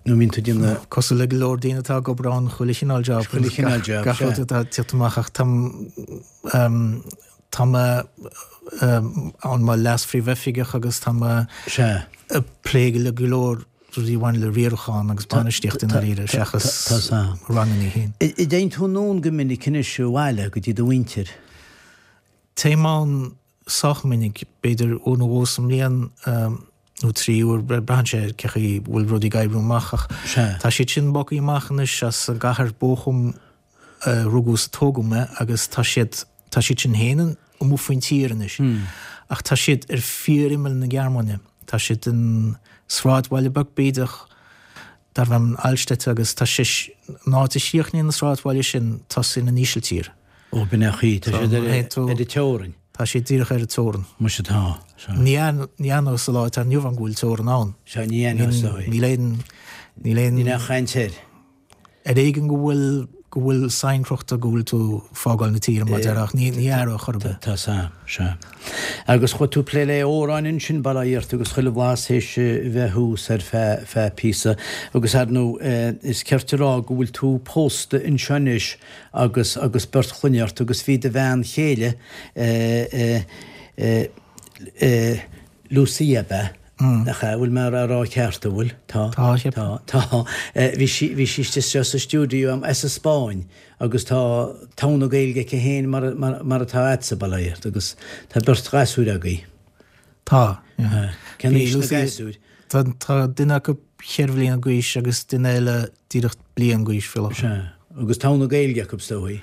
Nó bhíonn tú ag déanamh. Cosúil le go leor daoine atá ag obair ann, chuile chineál job. Chuile chineál job, sea. Gach rud atá ag tíocht amach ach tá, Tá mé ann mar leas-phríomhoifigeach agus tá mé ag plé le go leor rudaí a bhaineann le riarachán agus bainistíocht i ndáiríre seachas ranganna féin. An dtéann tú anonn go minic anois abhaile go dtí do mhuintir? Téim ann sách minic, b'fhéidir uair nó dhó sa mbliain nó 3 uair, braitheann sé ar cé chaoi bhfuil rudaí ag oibriú amach ach tá siad sin bogtha amach anois as an gcathair Bochum a rugadh is a tógadh mé agus tá siad, tá siad sin féin amuigh faoin tír anois ach tá siad ar fíor-imeall na Gearmáine. Tá siad in sráidbhaile beag bídeach darbh ainm Alstätte agus tá sé, an áit a chríochnaíonn an sráidbhaile sin, tosaíonn an Ísiltír. Ó, b'in é an chaoi, tá siad ar an teorainn. Tá siad díreach ar an teorainn. Muise tá, sea. Ní aithneofá sa lá atá inniu ann go bhfuil teorainn ann. Sea, ní aithneofá. Níl aon, níl aon. Níl aon chaint air. Ar éigean go bhfuil, go bhfuil sign crochta go bhfuil tú fágáil na tíre mar déarfá ach ní, ní aireofá chor ar bith. Tá sea, sea. Agus chuaigh tú plé le amhráin ansin, bail ó Dhia ort agus chuile bhlas théis bheith thuas ar feadh, feadh píosa. Agus ar ndóigh is cert a rá go bhfuil tú pósta anseo anois agus, agus beirt chlainne ort agus bhí do bhean chéile eh, eh, eh, eh, Lucia ab ea? Nach ea? Bhfuil mé á rá ceart, an bhfuil? Tá. Tá, cheapfainn. Tá, tá. Bhí sí, bhí sí istigh sa stiúideo agam as an Spáinn agus tá togha na Gaeilge aici féin mar, mar, mar atá agatsa, bail ó Dhia ort, agus tá beirt ghasúir agaibh. Tá, yeah. Cén aois na gasúir? Tá, tá duine acu cheithre bhliana d'aois agus duine eile díreach bliain d'aois faoi láthair. Sea. Agus togha na Gaeilge acu, is dóigh.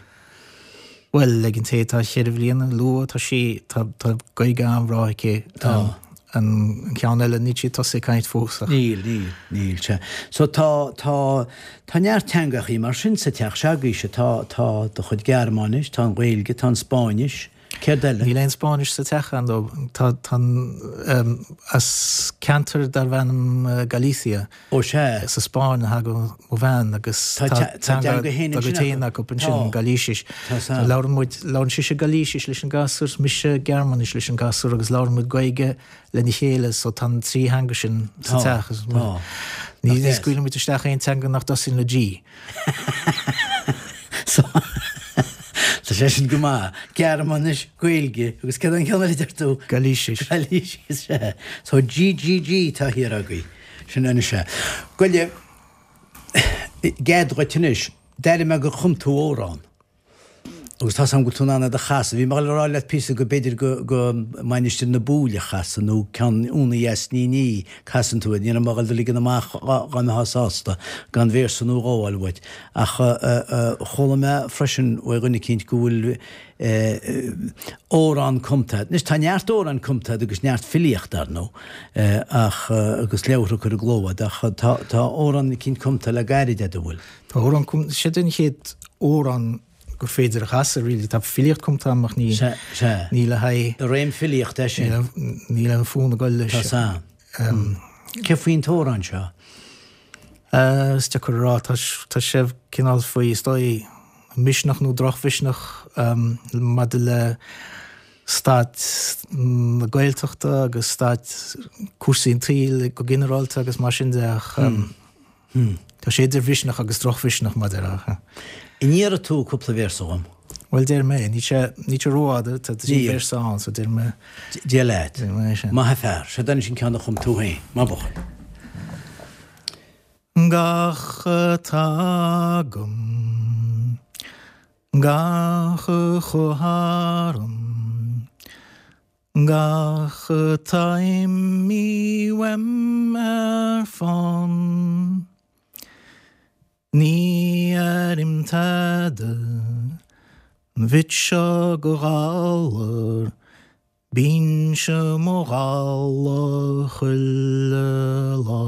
Bhuel, ag an té atá cheithre bhliana, luath, tá sí, tá, tá Gaeilge an-bhreá aici. Tá. An ceann eile, níl sí tosaithe ag caint fós ach. Níl, níl, níl, sea. So tá, tá, tá neart teangachaí mar sin sa teach s'agaibhse, tá, tá do chuid Gearmáinis, tá an Ghaeilge, tá an Spáinnis. Céard eile? Níl aon Spáinnis sa teach, ar ndóigh. Tá, tá an, as ceantar darbh ainm Galicia. Ó sea. Sa Spáinn a thagann mo bhean agus tá teanga dá gcuid féin acu ansin, Gailísis. Tá. Labhrann muid, labhrann sise Gailísis leis an gasúr, mise Gearmáinis leis an gasúr agus labhrann muid Gaeilge lena chéile so tá an trí theanga sin sa teach. Tá. Ní scaoileann muid isteach aon teanga nach dtosaíonn le G. So, tá sé sin go maith. Gearmáinis, Gaeilge, agus céard an ceann eile a deir tú? Gailísis. Gailísis, sea. So GGG atá thiar agaibh. Sin anois é. Goile, i gcead dhuit anois, d'airigh mé gur chum tú amhrán. Agus tá's agam go bhfuil tú in ann é do chasadh. Bhí mé ag dul a rá leat píosa go b'fhéidir go, go Mainistir na Búille a chasadh nó ceann Úna Dheas Ní Ní casann tú iad. Ní raibh mé ag dul do ligean amach dhá mbeifeá sásta gan véarsa nó dhó a fháil uait. Ach chuala mé freisin uaidh dhuine eicínt go bhfuil amhrán cumtha agat. Anois tá neart amhráin cumtha agat agus neart filíochta, ar ndóigh, ach agus leabhartha curtha i gcló agat ach tá tá amhrán eicínt cumtha le gairid agat, an bhfuil? Tá amhrán cumtha, siod an chéad amhrán gur féidir a chasadh, really. Tá filíocht cumtha agam ach ní, Sea, sea. ní le haghaidh. I réim filíochta é sin. Níl aon fhonn ag dul leis. Tá san. Cé faoin t-amhrán seo? Is deacair a rá. Tá, tá sé cineál faoi, is dóigh, misneach nó drochmhisneach maidir le staid na Gaeltachta agus staid cúrsaí an tsaoil go ginearálta agus mar sin de ach Tá sé idir mhisneach agus drochmhisneach, mar a déarfá. An ndéarfaidh tú cúpla véarsa dhom? Bhuel, déarfaidh mé. Níl sé, níl sé rófhada, tá trí véarsa ann, so déarfaidh mé. Dia leat. Déarfaidh mé sin. Maith an fear. Seo anois an ceann a chum tú féin. Maith buachaill. Gach atá agam, gach a chuaigh tharam, Gach atá imithe uaim ar fán. Ní airím tada an bhit seo go ghalar, bínnse mo dhalladh chuile lá.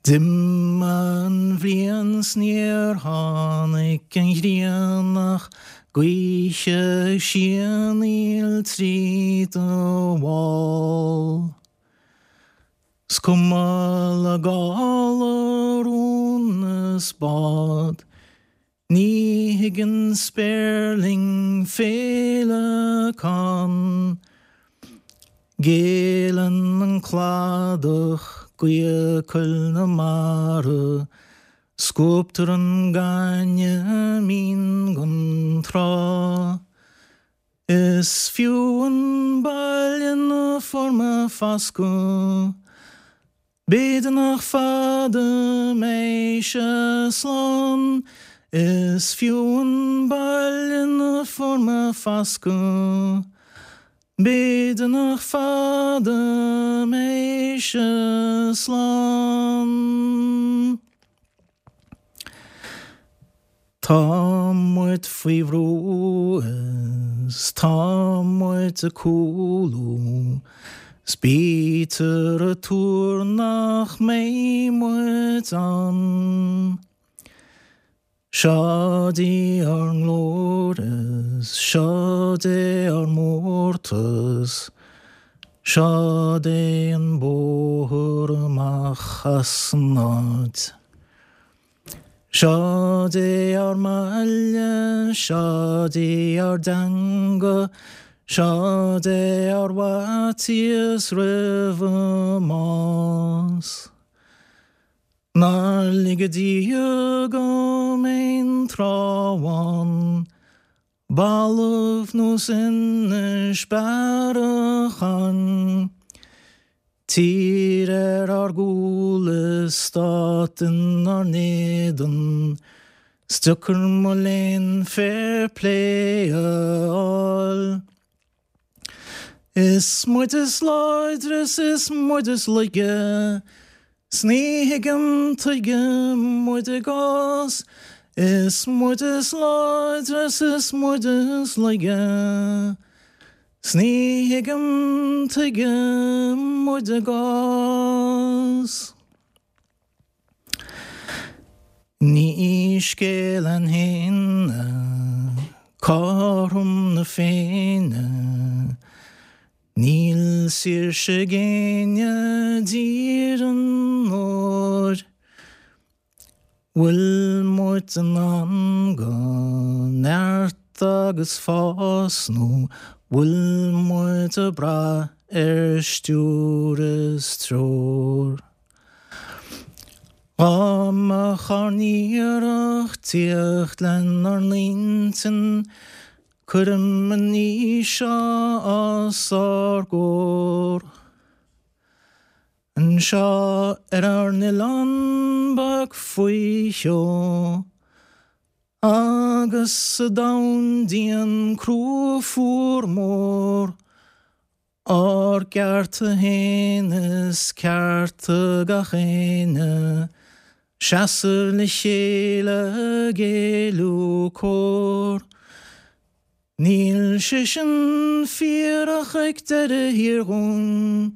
D'imigh an bhliain 's níor tháinig an ghrian ach gaoth ag sianaíl tríd an bhfál. 'S cuma le gála rún is bád. Ní thuigeann spéirling féileacán. Géilleann an cladach gaoth coill na mara, Scuabtar an gaineamh mín gon trá. Is fiú an baile 'na fuair mé fascadh. B'fhéidir nach fada mbeidh sé slán. Is fiú an baile 'na fuair mé fascadh. B'fhéidir nach fada mbeidh sé slán. Tá muid faoi bhrú is tá muid ag cúlú 's bítear ag tuar nach mbeidh muid ann. Seod í ár nglóir is seod é ár mórtas, seod é an bóthar amach as an áit. Seod é ár mbaile, seod í ár dteanga, seod é ár bhfaitíos roimh an mbás. Nár lige Dia go mbeinn tráth amháin Balbh nós Inis Bearachain, Tír ar ár gcúl is stát inár n-éadan, 's deacair mo léan fair play a fháil. Is muid is láidre 's is muid is laige, 's ní thuigim tuige muid i gcás, Is muid is láidre 's is muid is laige, 's ní thuigim tuige muid i gcás. Ní scéal againn féin. Cothrom na Féinne. Níl saoirse ag éinne i dTír an Óir. Bhfuil muid in ann do neart agus fás nó bhfuil muid ag brath ar stiúir is treoir? Dá mbeadh ár n-iarracht tíocht lenár n-intinn Cuirim an ní seo os ár gcomhair. Anseo ar ár n-oileán beag faoi sheó agus sa domhan dian crua fuar mór, ár gcearta féin is cearta gach éinne, seasamh le chéile ag éiliú cóir. Níl sé sin fíor ach ag deireadh thiar dhúinn,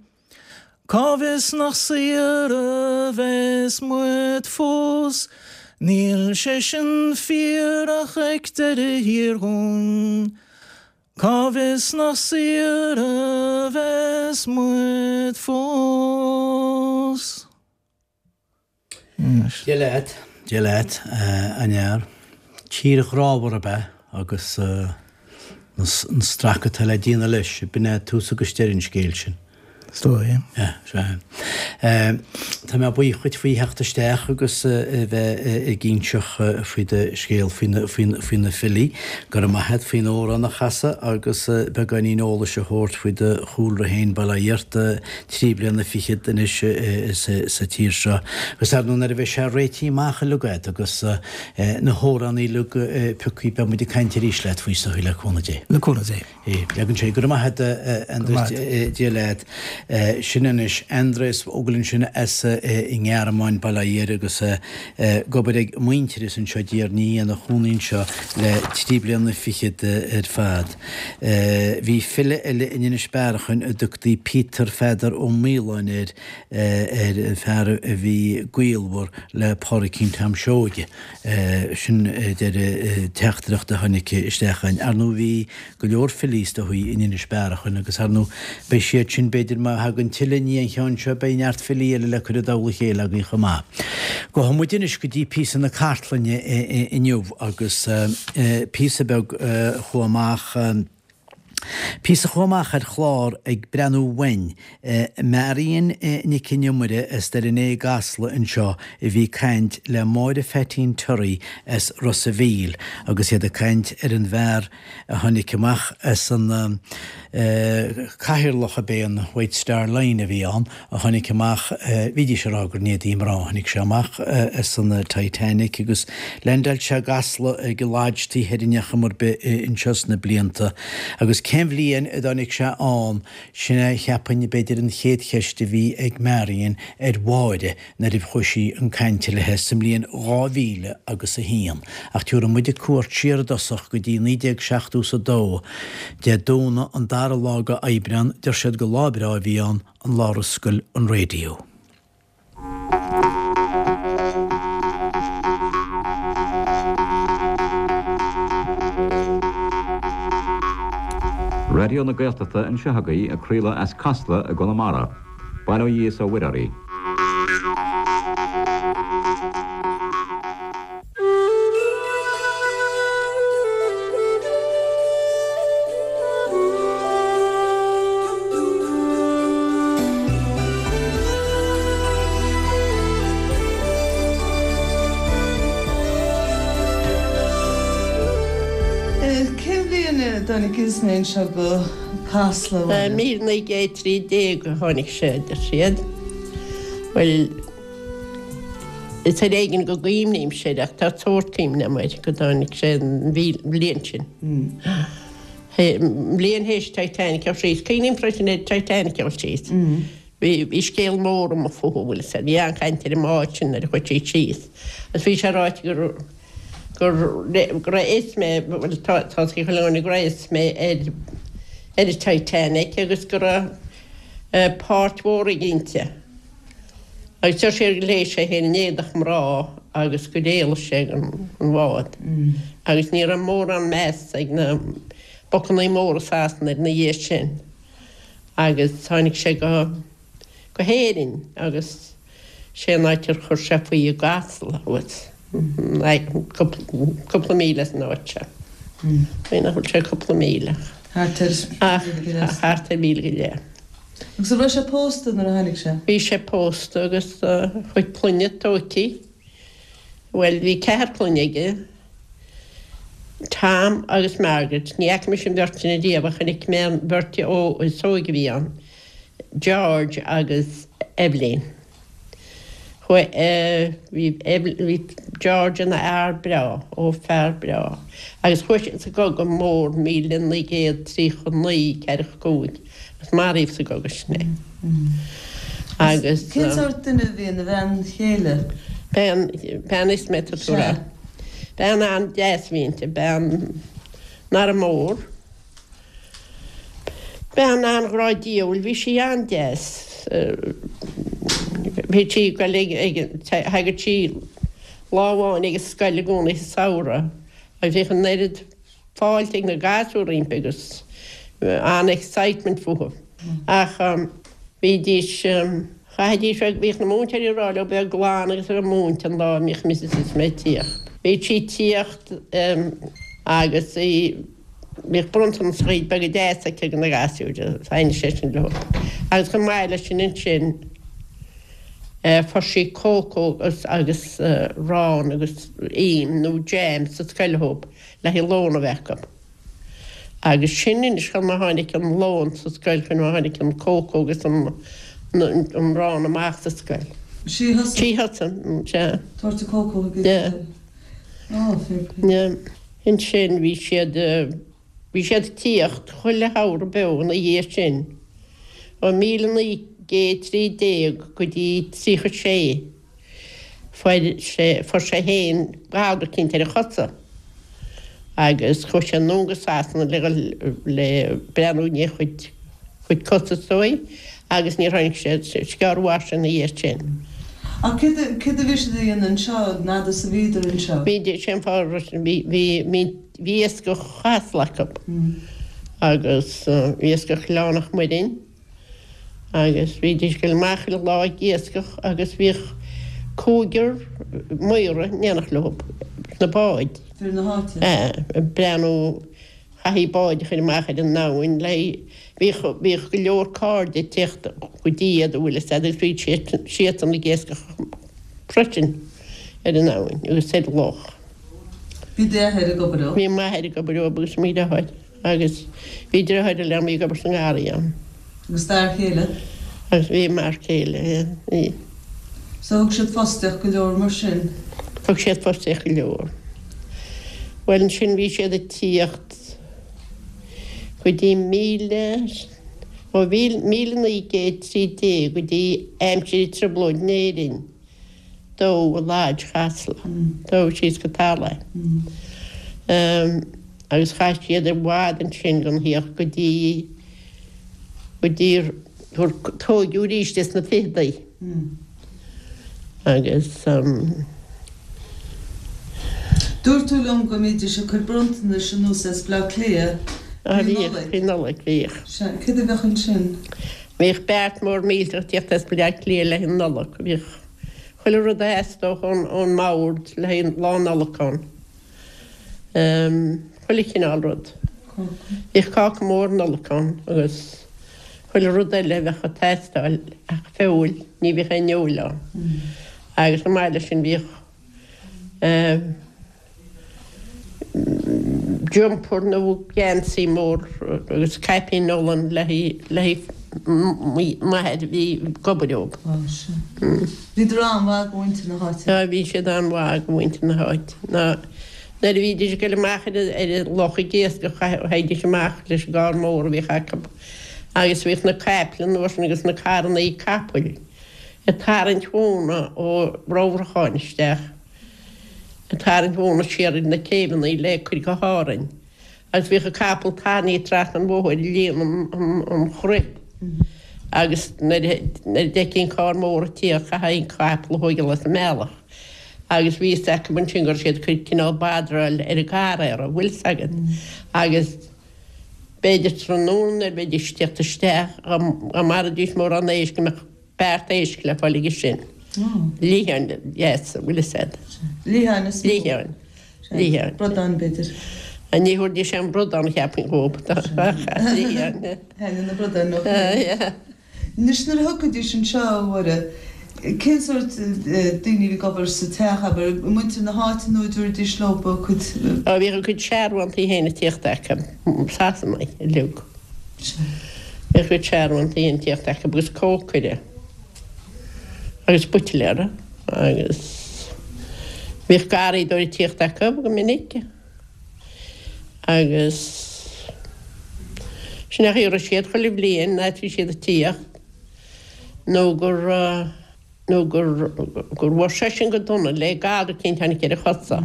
cá bhfios nach saor a bheas muid fós? Níl sé sin fíor ach ag deireadh thiar dhúinn, Cá bhfios nach saor a bheas muid fós? Dia leat, Dia leat, a fhear. Tír ghrámhar ab ea agus an strac atá le déanamh leis, b'in é tús agus deireadh an scéil sin. Is dóigh. Yeah, sea. Tá mé buíoch dhuit faoi theacht isteach agus a bheith ag inseacht faoi do scéal faoi na filí. Go raibh maith a't faoin amhrán a chasadh agus beagáinín eolais a thabhairt faoi do chúlra féin, bail ó Dhia ort, 3 bliana fichead anois sa tír seo. Agus ar ndóigh nuair a bheidh sé réitithe amach uilig agat agus na hamhráin uilig pioctha beidh muid ag caint arís leat faoi is dóigh le cúnamh Dé. Le cúnamh Dé. Leagann sé, Go raibh maith agat, a Aindreas, Dia leat. Sin anois Andreas Vogel ansin as an nGearmáin, bail ó Dhia air, agus ag obair ag Muintearas anseo i dTír an Fhia, ina chónaí anseo le 3 bliana fichead ar fad. Bhí file eile in Inis Bearachain a dtugtaí Peter Pheadar Ó Maoláin air, ar an fear a bhí gaolmhar le Pádraicín Tom Seoige. Sin deir teachtaireacht a tháinig isteach againn. Ar ndóigh bhí go leor filí is dóigh in Inis Bearachain agus ar ndóigh beidh siad sin b'fhéidir má thagann tuilleadh i ndiaidh an cheann seo beidh neart filí eile le cur i dtoll a chéile againn chomh maith. Gabhfaidh muid anois go dtí píosa na cartlainne inniu agus píosa beag a chuaigh amach, píosa a chuaigh amach ar chlár Ag Breathnú Uainn. Marion Nic an Iomaire as Doire an Fhéich i gCasla anseo a bhí ag caint le Máire Pheaitín Terry as Ros a' Mhíl agus iad ag caint ar an bhfear a tháinig amach as an cathaoirleach ab é an White Star Line a bhí ann a tháinig amach, bhídís ag rá gur in éadaí mná a tháinig sé amach as an Titanic agus leaindeáil sé i gCasla ag an Lodge taobh thoir in chuma ar bith anseo sna blianta agus cén bhliain a dtáinig sé ann sin é cheapfainn b'fhéidir an chéad cheist a bhí ag Marion ar Mháire nuair a chuaigh sí chun cainte léi sa mbliain 2000 agus a haon. Ach tiúrfaidh muide cuairt siar i dtosach go dtí 1972, Dé Domhnaigh an dara lá de Aibreán, deir siad gur lá breá a bhí ann, an lá ar oscail an raidió. Raidió na Gaeltachta anseo agaibh ag craoladh as Casla i gConamara. Bail ó Dhia is ó Mhuire oraibh. Cén bhliain a dtáinig Ismay anseo go Casla, a Mháire? 1913 a tháinig sé, a deir siad. Bhuel, is ar éigean go gcuimhnímse air ach tá sórt cuimhne agam air go dtáinig sé an bhliain sin. An bhliain théis Titanic a dhul síos. Cuimhním freisin ar Titanic a dhul síos. Bhí scéal mór amuigh fúthu, bhfuil fhios a'd. Bhí an-chaint ar an mbád sin nuair a chuaigh sí síos. Agus bhí sé ráite gur go raibh Ismay, bhuel tá a fhios ag chuile dhuine go raibh Ismay ar ar an Titanic agus go raibh páirt mhór aige inti. Agus deir siad gur ghléas sé féin in éadach mná. agus gur éalaigh sé den bhád agus ní raibh mórán meas ag na bocannaí móra Sasana air ina dhiaidh sin agus tháinig sé go go hÉirinn agus sé an áit ar chuir sé faoi i gCasla thuas cúpla míle as an áit seo. Bhuel nach bhfuil sé cúpla míle Thart ar mhíle go leith. Thart ar mhíle go leith. Agus an raibh sé pósta nuair a tháinig sé? Bhí sé pósta agus a chuid clainne tóigthe. Bhuel, bhí ceathar clainne aige, Tom agus Margaret, ní fhaca mise an bheirt sin ariamh ach chonaic mé an bheirt is óige a bhí ann, George agus Evelyn. Chuaigh, bhí, bhí George ina fhear breá, ó fear breá, agus chuaigh sé sa gCogadh Mór 1939, 45, agus maraíodh sa gcogadh sin é. Agus. Cén sórt duine a bhí ina bhean chéile? Bean, bean Ismay tá tú a rá. Bean an-deas a bhí inti, bean nach raibh mór. Bean an-ghrá diabhail, bhí sí an-deas. Bhí sí ag goil ag, thagadh sí lá amháin ag an scoil i gcónaí sa samhradh agus bhíodh an oiread fáilte ag na gasúir roimpi agus an-excitement fúthu. Ach bhídís, chaithfidís, bhíodh na múinteoirí ag rá leo bheith glan agus a bheith múinte an lá a mbíodh Mrs Ismay ag tíocht. Bhíodh sí ag tíocht agus í. Bhíodh bronntanaschaí beaga deasa aici do na gasúir, thaitnigh sé sin leo. Agus chomh maith leis sin ansin fuair sí cócó agus arán agus im nó jam sa scoil dhóibh le haghaidh lón a bheith acu. Agus sin anois conas mar tháinig an lón sa scoil, conas mar tháinig an cócó agus an arán amach sa scoil. Sí a thosaigh. Sí a thosaigh, sea. Tabhairt an cócó chuig an scoil. Á, fair play. Ansin bhí siad, bhí siad ag tíocht chuile shamhradh beo ina dhiaidh sin, ó 1913 go dtí 36. Fuair sé, fuair sé fhéin galar eicínt ar a chosa agus chuaigh sé anonn go Sasana le dhul le breathnú i ndiaidh a chuid, chuid cosa is dóigh agus níor tháinig sé, is gearr a mhair sé ina dhiaidh sin. Ach céard a, céard a bhí siad a dhéanamh anseo, an fhad is a bhíodar anseo? Bhí, sé an fáth a raibh, bhí, bhí, bhí, bhí iascach Chasla acu agus bhí iascach Ghleann Mhuirinn agus bhídís ag dul amach chuile lá ag iascach agus bhíodh cúigear maora in éineacht leo sna báid. Fir na háite? Ag breathnú Chaithfí báid a chur amach ar an abhainn le Bhíodh, bhíodh go leor cairde ag tíocht go dtí iad an bhfuil fhios a'd agus bhíodh siad, siadsan ag iascach freisin ar an abhainn agus ar an loch. Bhí d'athair ag obair leo? Bhí m'athair ag obair leo agus mo dheartháir agus bhí deartháir eile a'm ag obair sa ngarraí ann. Agus d'fhear chéile? Agus bhí m'fhear céile, yeah, bhí. So thug siad fostaíocht go leor mar sin? Thug siad fostaíocht go leor. Bhuel ansin bhí siad ag tíocht go dtí míle, ó 1913 go dtí aimsir an trioblóid in Éirinn, dódh Lodge Chasla, dódh síos go talamh é. Agus chaith siad i bhfad ansin gan thíocht go dtí, go dtí gur tóigeadh arís é sna ficheadaí. Agus. Dúirt tú liom go mbídís ag cur bronntanais anuas as Bleá Cliath faoi Nollaig. Faoi Nollaig, bhíodh. Sea, céard a bheadh ansin? Bhíodh beart mór millteach ag tíocht as Bleá Cliath le haghaidh na Nollag. Bhíodh chuile rud a theastódh ón mbord le haghaidh Lá Nollag ann. Chuile chineál rud. Bhíodh cáca mór Nollag ann agus chuile rud eile a bheadh ag teastáil ach feoil, ní bhíodh aon fheoil ann. Agus chomh maith leis sin bhíodh jumper nó geansaí mór agus caipín olann le haghaidh m'athair a bhí ag obair leo. Bhíodar an-mhaith go mhuintir na háite. Á bhí siad an-mhaith go mhuintir na háite. Ná nuair a bhídís ag dul amach ar an loch ag iascach théidís amach leis an gcarr mór a bhíodh acu agus bhíodh na caiple an uair sin agus na carrannaí capaill ag tarraingt mhóna ó Ramhracháin isteach, ag tarraingt mhóna siar ar na céibheanna le cur go hÁrainn agus bhíodh an capall tarraingthe trasna an bhóthair ag líonadh an chruib agus nuair a d'fheictí an carr mór ag tíocht chaithfí an capall a thóigeáil as an mbealach. Agus bhí fhios acu ansin go raibh siad ag cur cineál badráil ar an gcarraera, bhfuil 's agat. Agus b'fhéidir tráthnóna nuair a bheidís ag tíocht isteach, dá maraídís mórán éisc go mbeadh beart éisc le fáil aige sin. Liatháin, yes, bhfuil 'fhios a'd. Liatháin is mó. Liatháin. Liatháin. Bradán, b'fhéidir. Ní thabharfaidís aon bhradán, cheapfainn, dhób. Liatháin. Thaitnigh na bradáin leo. Yeah. Anois nuair a thiocfaidís anseo, a Mháire, cén sórt daoine a bhí ag obair sa teach, abair, muintir na háite nó an dtabharfaidís leo a gcuid. Ó, bhíodh a gcuid searbhóntaí féin ag tíocht acu, Sasanaigh uilig. Bhíodh a gcuid searbhóntaí féin ag tíocht acu agus cócaire agus buitléir agus bhíodh garraíodóir ag tíocht acu go minic. Agus sin é an chaoi a raibh siad chuile bhliain nuair a bhí siad ag tíocht nó gur nó gur gur bhuail seisean go dona le galar eicínt tháinig ar a chosa.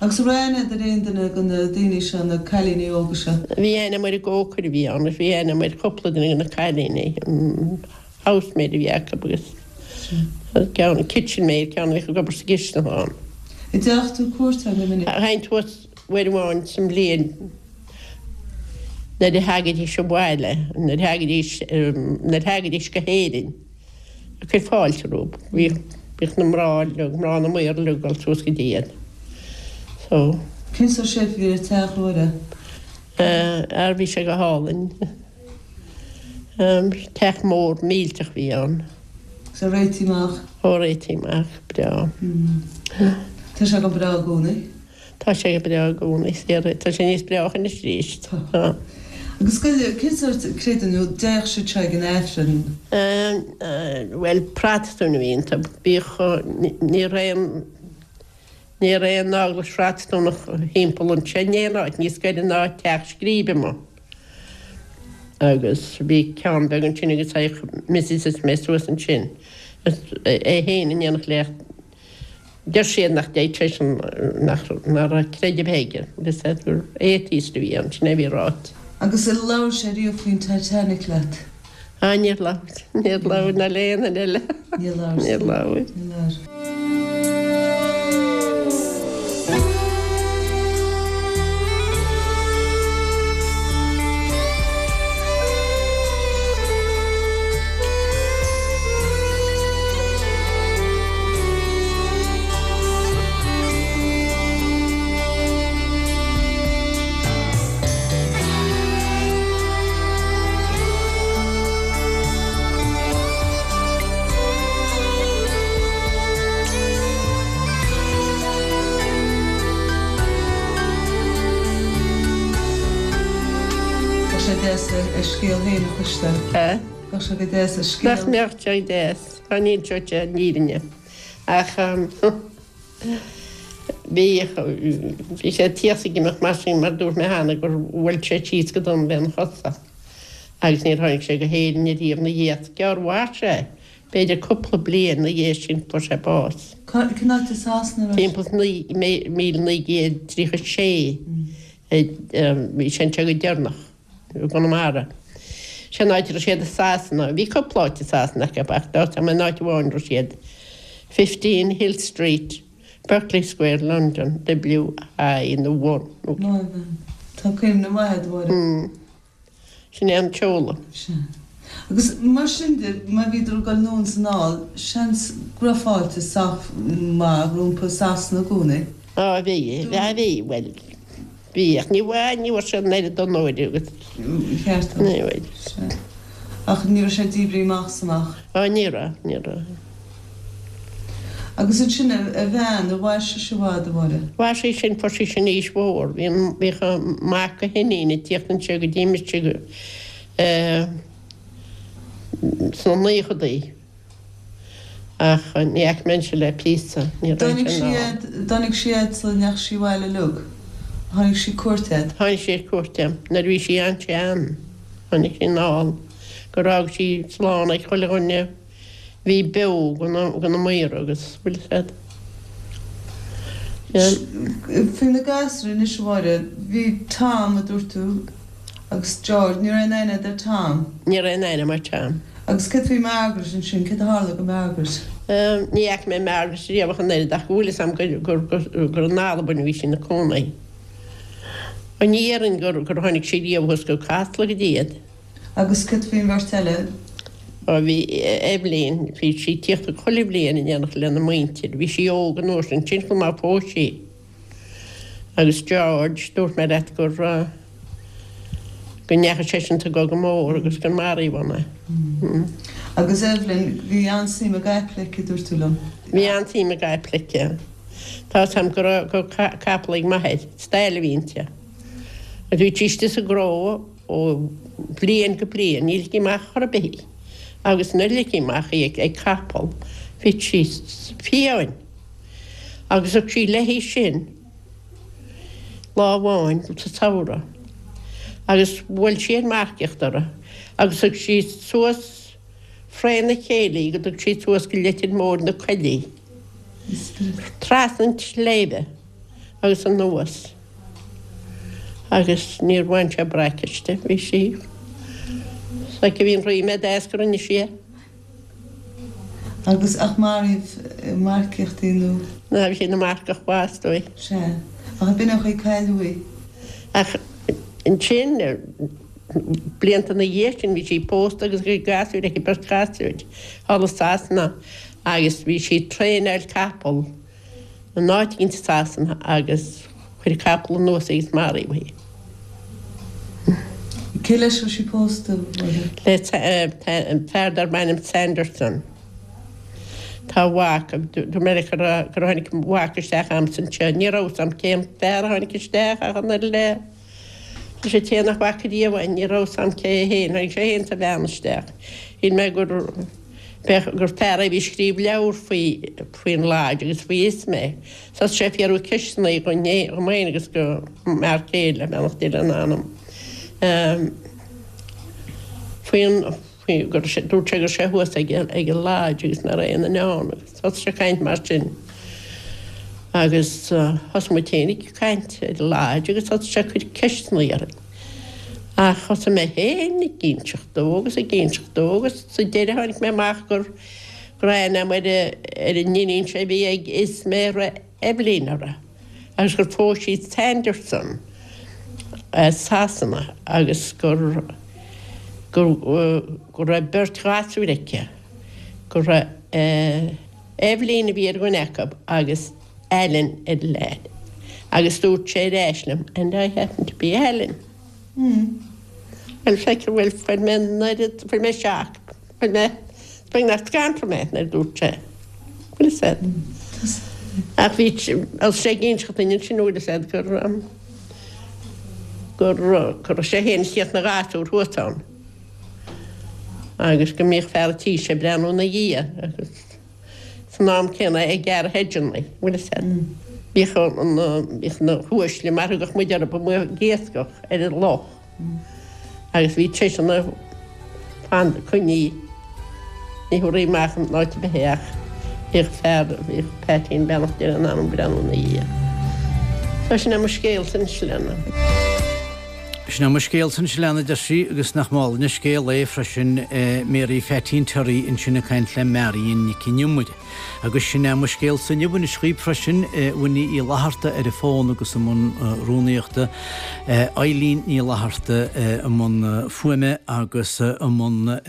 Agus an raibh aithne agat ar aon duine de na daoine seo, na cailíní óga seo? Bhí aithne agam ar an gcócaire a bhí ann agus bhí aithne agam ar chúpla duine de na cailíní, an housemaid a bhí acu agus ceann, kitchen maid, ceann a bhíodh ag obair sa gcistin ann. An dteachaigh tú cuairt orthu go minic? Théinn suas uair amháin sa mbliain nuair a thagaidís abhaile, nuair a thagaidís, nuair a thagaidís go hÉirinn ag cur fáilte rompu. Bhíodh, bhíodh na mná uilig, mná na maor uilig ag dul suas go dtí iad. So. Cén sórt shape a bhí ar an teach, a Mháire? Ar, bhí sé go hálainn. Teach mór millteach a bhí ann. Is é réitithe amach. Ó, réitithe amach, breá. Tá sé go breá i gcónaí. Tá sé go breá i gcónaí, tá sé níos breácha anois arís. Tá. Agus cén sórt creideamh nó dtéadh siad seo ag an Aifreann? Bhuel, Protastúin a bhí iontu. Bhíodh, ní raibh aon, ní raibh aon eaglais Phrotastúnach thimpeall anseo in aon áit, níos gaire ná Teach Scríbe amuigh. Agus bhí ceann beag ansin agus théadh Mrs is mé suas ansin, é féin in éineacht le Deir siad nach dtéadh seisean, nach raibh creideamh aige, agus gur atheist a bhí ann, sin é a bhí ráite. Agus ar labhair sé riamh faoin Titanic leat? Ah, níor labhair, níor labhair ná le aon duine eile. Níor labhair. Níor labhair. Níor labhair. Bheadh sé deas a scéal féin a chloisteáil. Bheadh sé go deas a scéal. Nach mbeadh sé deas? Dá n-inseodh sé an fhírinne. Ach bhí, bhí sé tíos ag imeacht mar sin mar dúirt mé cheana gur bhuail sé síos go dona lena chosa agus níor tháinig sé go hÉirinn ariamh ina dhiaidh. Gearr mhair sé, b'fhéidir cúpla bliain ina dhiaidh sin fuair sé bás. Cén áit i Sasana a raibh sé? Timpeall 1936 bhí sé anseo go deireanach. i gConamara. Sin an áit a raibh siad i Sasana. Bhí cúpla áit i Sasana acu ach tá a fhios agam an áit amháin a raibh siad, 15 Hill Street, Berkeley Square, London, WI nó 1. Maith a bhean. Tá cuimhne mhaith agat, a Mháire. Sin é an tseoladh. Sea. Agus mar sin de, má bhíodar ag dul anonn is anall, seans go raibh fáilte sách maith rompu i Sasana i gcónaí. Á, bhí, bhí, bhuel, Bhí, ach ní bhfuair, ní bhfuair sé an oiread onóir agus. Ceart. Ní bhfuair. Sea. Ach ní raibh sé díbrithe amach is amach. Á, ní raibh, ní raibh. Agus ansin a bhean, ar mhair sise i bhfad, a Mháire? Mhair sí sin, fuair sí sin aois mhór. Bhí an, bhíodh a mac a hiníon ag tíocht anseo go dtí mise go, eh, sna naochadaí. Ach ní fhaca mé anseo le píosa, ní raibh sé in ann. Tháinig sí fhad sula ndeachaigh sí abhaile uilig. Tháinig sí cuairt ort. Tháinig sí ar cuairt orm nuair a bhí sí an-sean. Tháinig sí anall gur fhág sí slán ag chuile dhuine a bhí beo de na maora agus bhfuil fhios agat. Faoi na gasúir anois a Mháire, bhí Tom a dúirt tú agus George, ní raibh aon aithne agat ar Tom? Ní raibh aon aithne agam ar Tom. Agus céard faoi Margaret ansin, céard a tharla go Margaret? Ní fhaca mé Margaret riamh ach an oiread ach go bhfuil fhios a'm gur in Albain a bhí sí ina cónaí. Ní dhéarfainn gur tháinig sí riamh thuas go Casla go dtí iad. Agus céard faoin bheirt eile? Ó bhí Eibhlín, bhí sí ag tíocht chuile bhliain in éineacht lena muintir. Bhí sí óg an uair sin, sin chomh maith phós sí. Agus George, dúirt mé leat gur, go ndeachaigh seisean sa gCogadh Mór agus gur maraíodh ann é. Agus Evelyn, bhí an-suim i gcaiple aici, dúirt tú liom. Bhí an-suim i gcaiple aici. Tá 'fhios a'm go raibh, go raibh capall ag m'athair, stail a bhí inti. Agus bhí sí istigh sa gcró ó bhliain go bliain, ní ligtí amach chor ar bith í. Agus nuair a ligtí amach í ag capall, bhí sí fiáin. Agus thug sí léi sin lá amháin sa samhradh agus bhuail sí ar marcaíocht uirthi agus thug sí suas fré na chéile í go dtug sí suas go Leitir Móir na coillí, trasna an tsléibhe agus anuas agus níor bhain sé braic aisti, bhí sí, is aici a bhí an ríméad as go rinne sí é. Agus ach maraíodh ag marcaíocht í nó? Ná bhí sí ina marcach mhaith is dóigh. Sea. Ach b'in an chaoi cailleadh í. Ach ansin, blianta ina dhiaidh sin, bhí sí pósta agus bhí gasúir aici, beirt ghasúir, thall i Sasana agus bhí sí ag traenáil capall in áit éigin i Sasana agus chuir capall anuas í agus maraíodh í. Cé leis a raibh sí pósta, Mháire? Le fear darb ainm Sanderson. Tá a mhac, dúirt mé leat gur tháinig a mhac isteach a'msa anseo. Ní raibh 'fhios a'm cén fear a tháinig isteach ach an oiread le leis an té nach bhfaca riamh é, ní raibh 'fhios a'm cé é féin. Tháinig sé féin is a bhean isteach. Shíl mé gur b'fhéidir gur fear é a bhí ag scríobh leabhar faoi faoin Lodge agus faoi Ismay. Thosaigh sé ag fiafraí ceisteanna dhom féin agus go m'fhear céile, beannacht Dé lena anam, faoin faoi gur dúirt sé go raibh sé thuas ag ag an Lodge agus nach raibh aon duine ann agus thosaigh sé ag caint mar sin agus thosaigh muid féin ag caint ar an Lodge agus thosaigh sé ag cur ceisteanna orainn. Ach thosaigh mé féin ag inseacht dó agus ag inseacht dó agus sa deireadh tháinig mé amach gur go raibh aithne agam ar ar an iníon seo a bhí ag Ismay a raibh Eibhlín uirthi agus gur phós sí Sanderson as Sasana agus gur gur go raibh beirt ghasúir aici, go raibh Eibhlín a bhí ar dhuine acu agus Alan ar an leaid. Agus dúirt sé ar ais liom, and I happen to be Alan. Bhuel, feictear, bhuel, fuair mé an oiread, fuair mé shock, fuair mé, is beagnach scanraigh mé nuair a dúirt sé, bhfuil fhios a'd. Ach bhí, thosaigh sé ag inseacht duinn ansin, bhfuil fhios a'd, gur, gur, go raibh sé féin ag tíocht ina ghasúr thuas ann agus go mbíodh fear a' tí seo ag breathnú ina dhiaidh agus san am céanna ag gearradh hedgeanna, bhfuil fhios a'd. Bhíodh na, bhíodh na huaisle mar a thugadh muid orthu amuigh ag iascach ar an loch agus bhí seisean ag fan coinnithe, ní thabharfaí amach in áit ar bith é ach bhíodh fear, bhíodh Peaitín beannacht Dé lena anam ag breathnú ina dhiaidh. So sin é mo scéalsa anois Lena. Sin é mo scéalsa anois Lena a deir sí agus nach álainn an scéal é freisin Mary Pheaitín Terry ansin ag caint le Marion Nic an Iomaire. Agus sin é mo scéalsa inniu anois dhaoib freisin Winnie Uí Fhlatharta ar an bhfón agus i mbun rúnaíochta, Eileen Ní Fhlatharta i mbun fuaime agus i mbun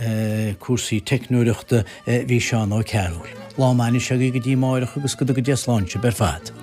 cúrsaí teicneoireachta bhí Seán Ó Cearúil. Lá maith anois agaibh go dtí amáireach agus go dtuga Dia slán sibh ar fad.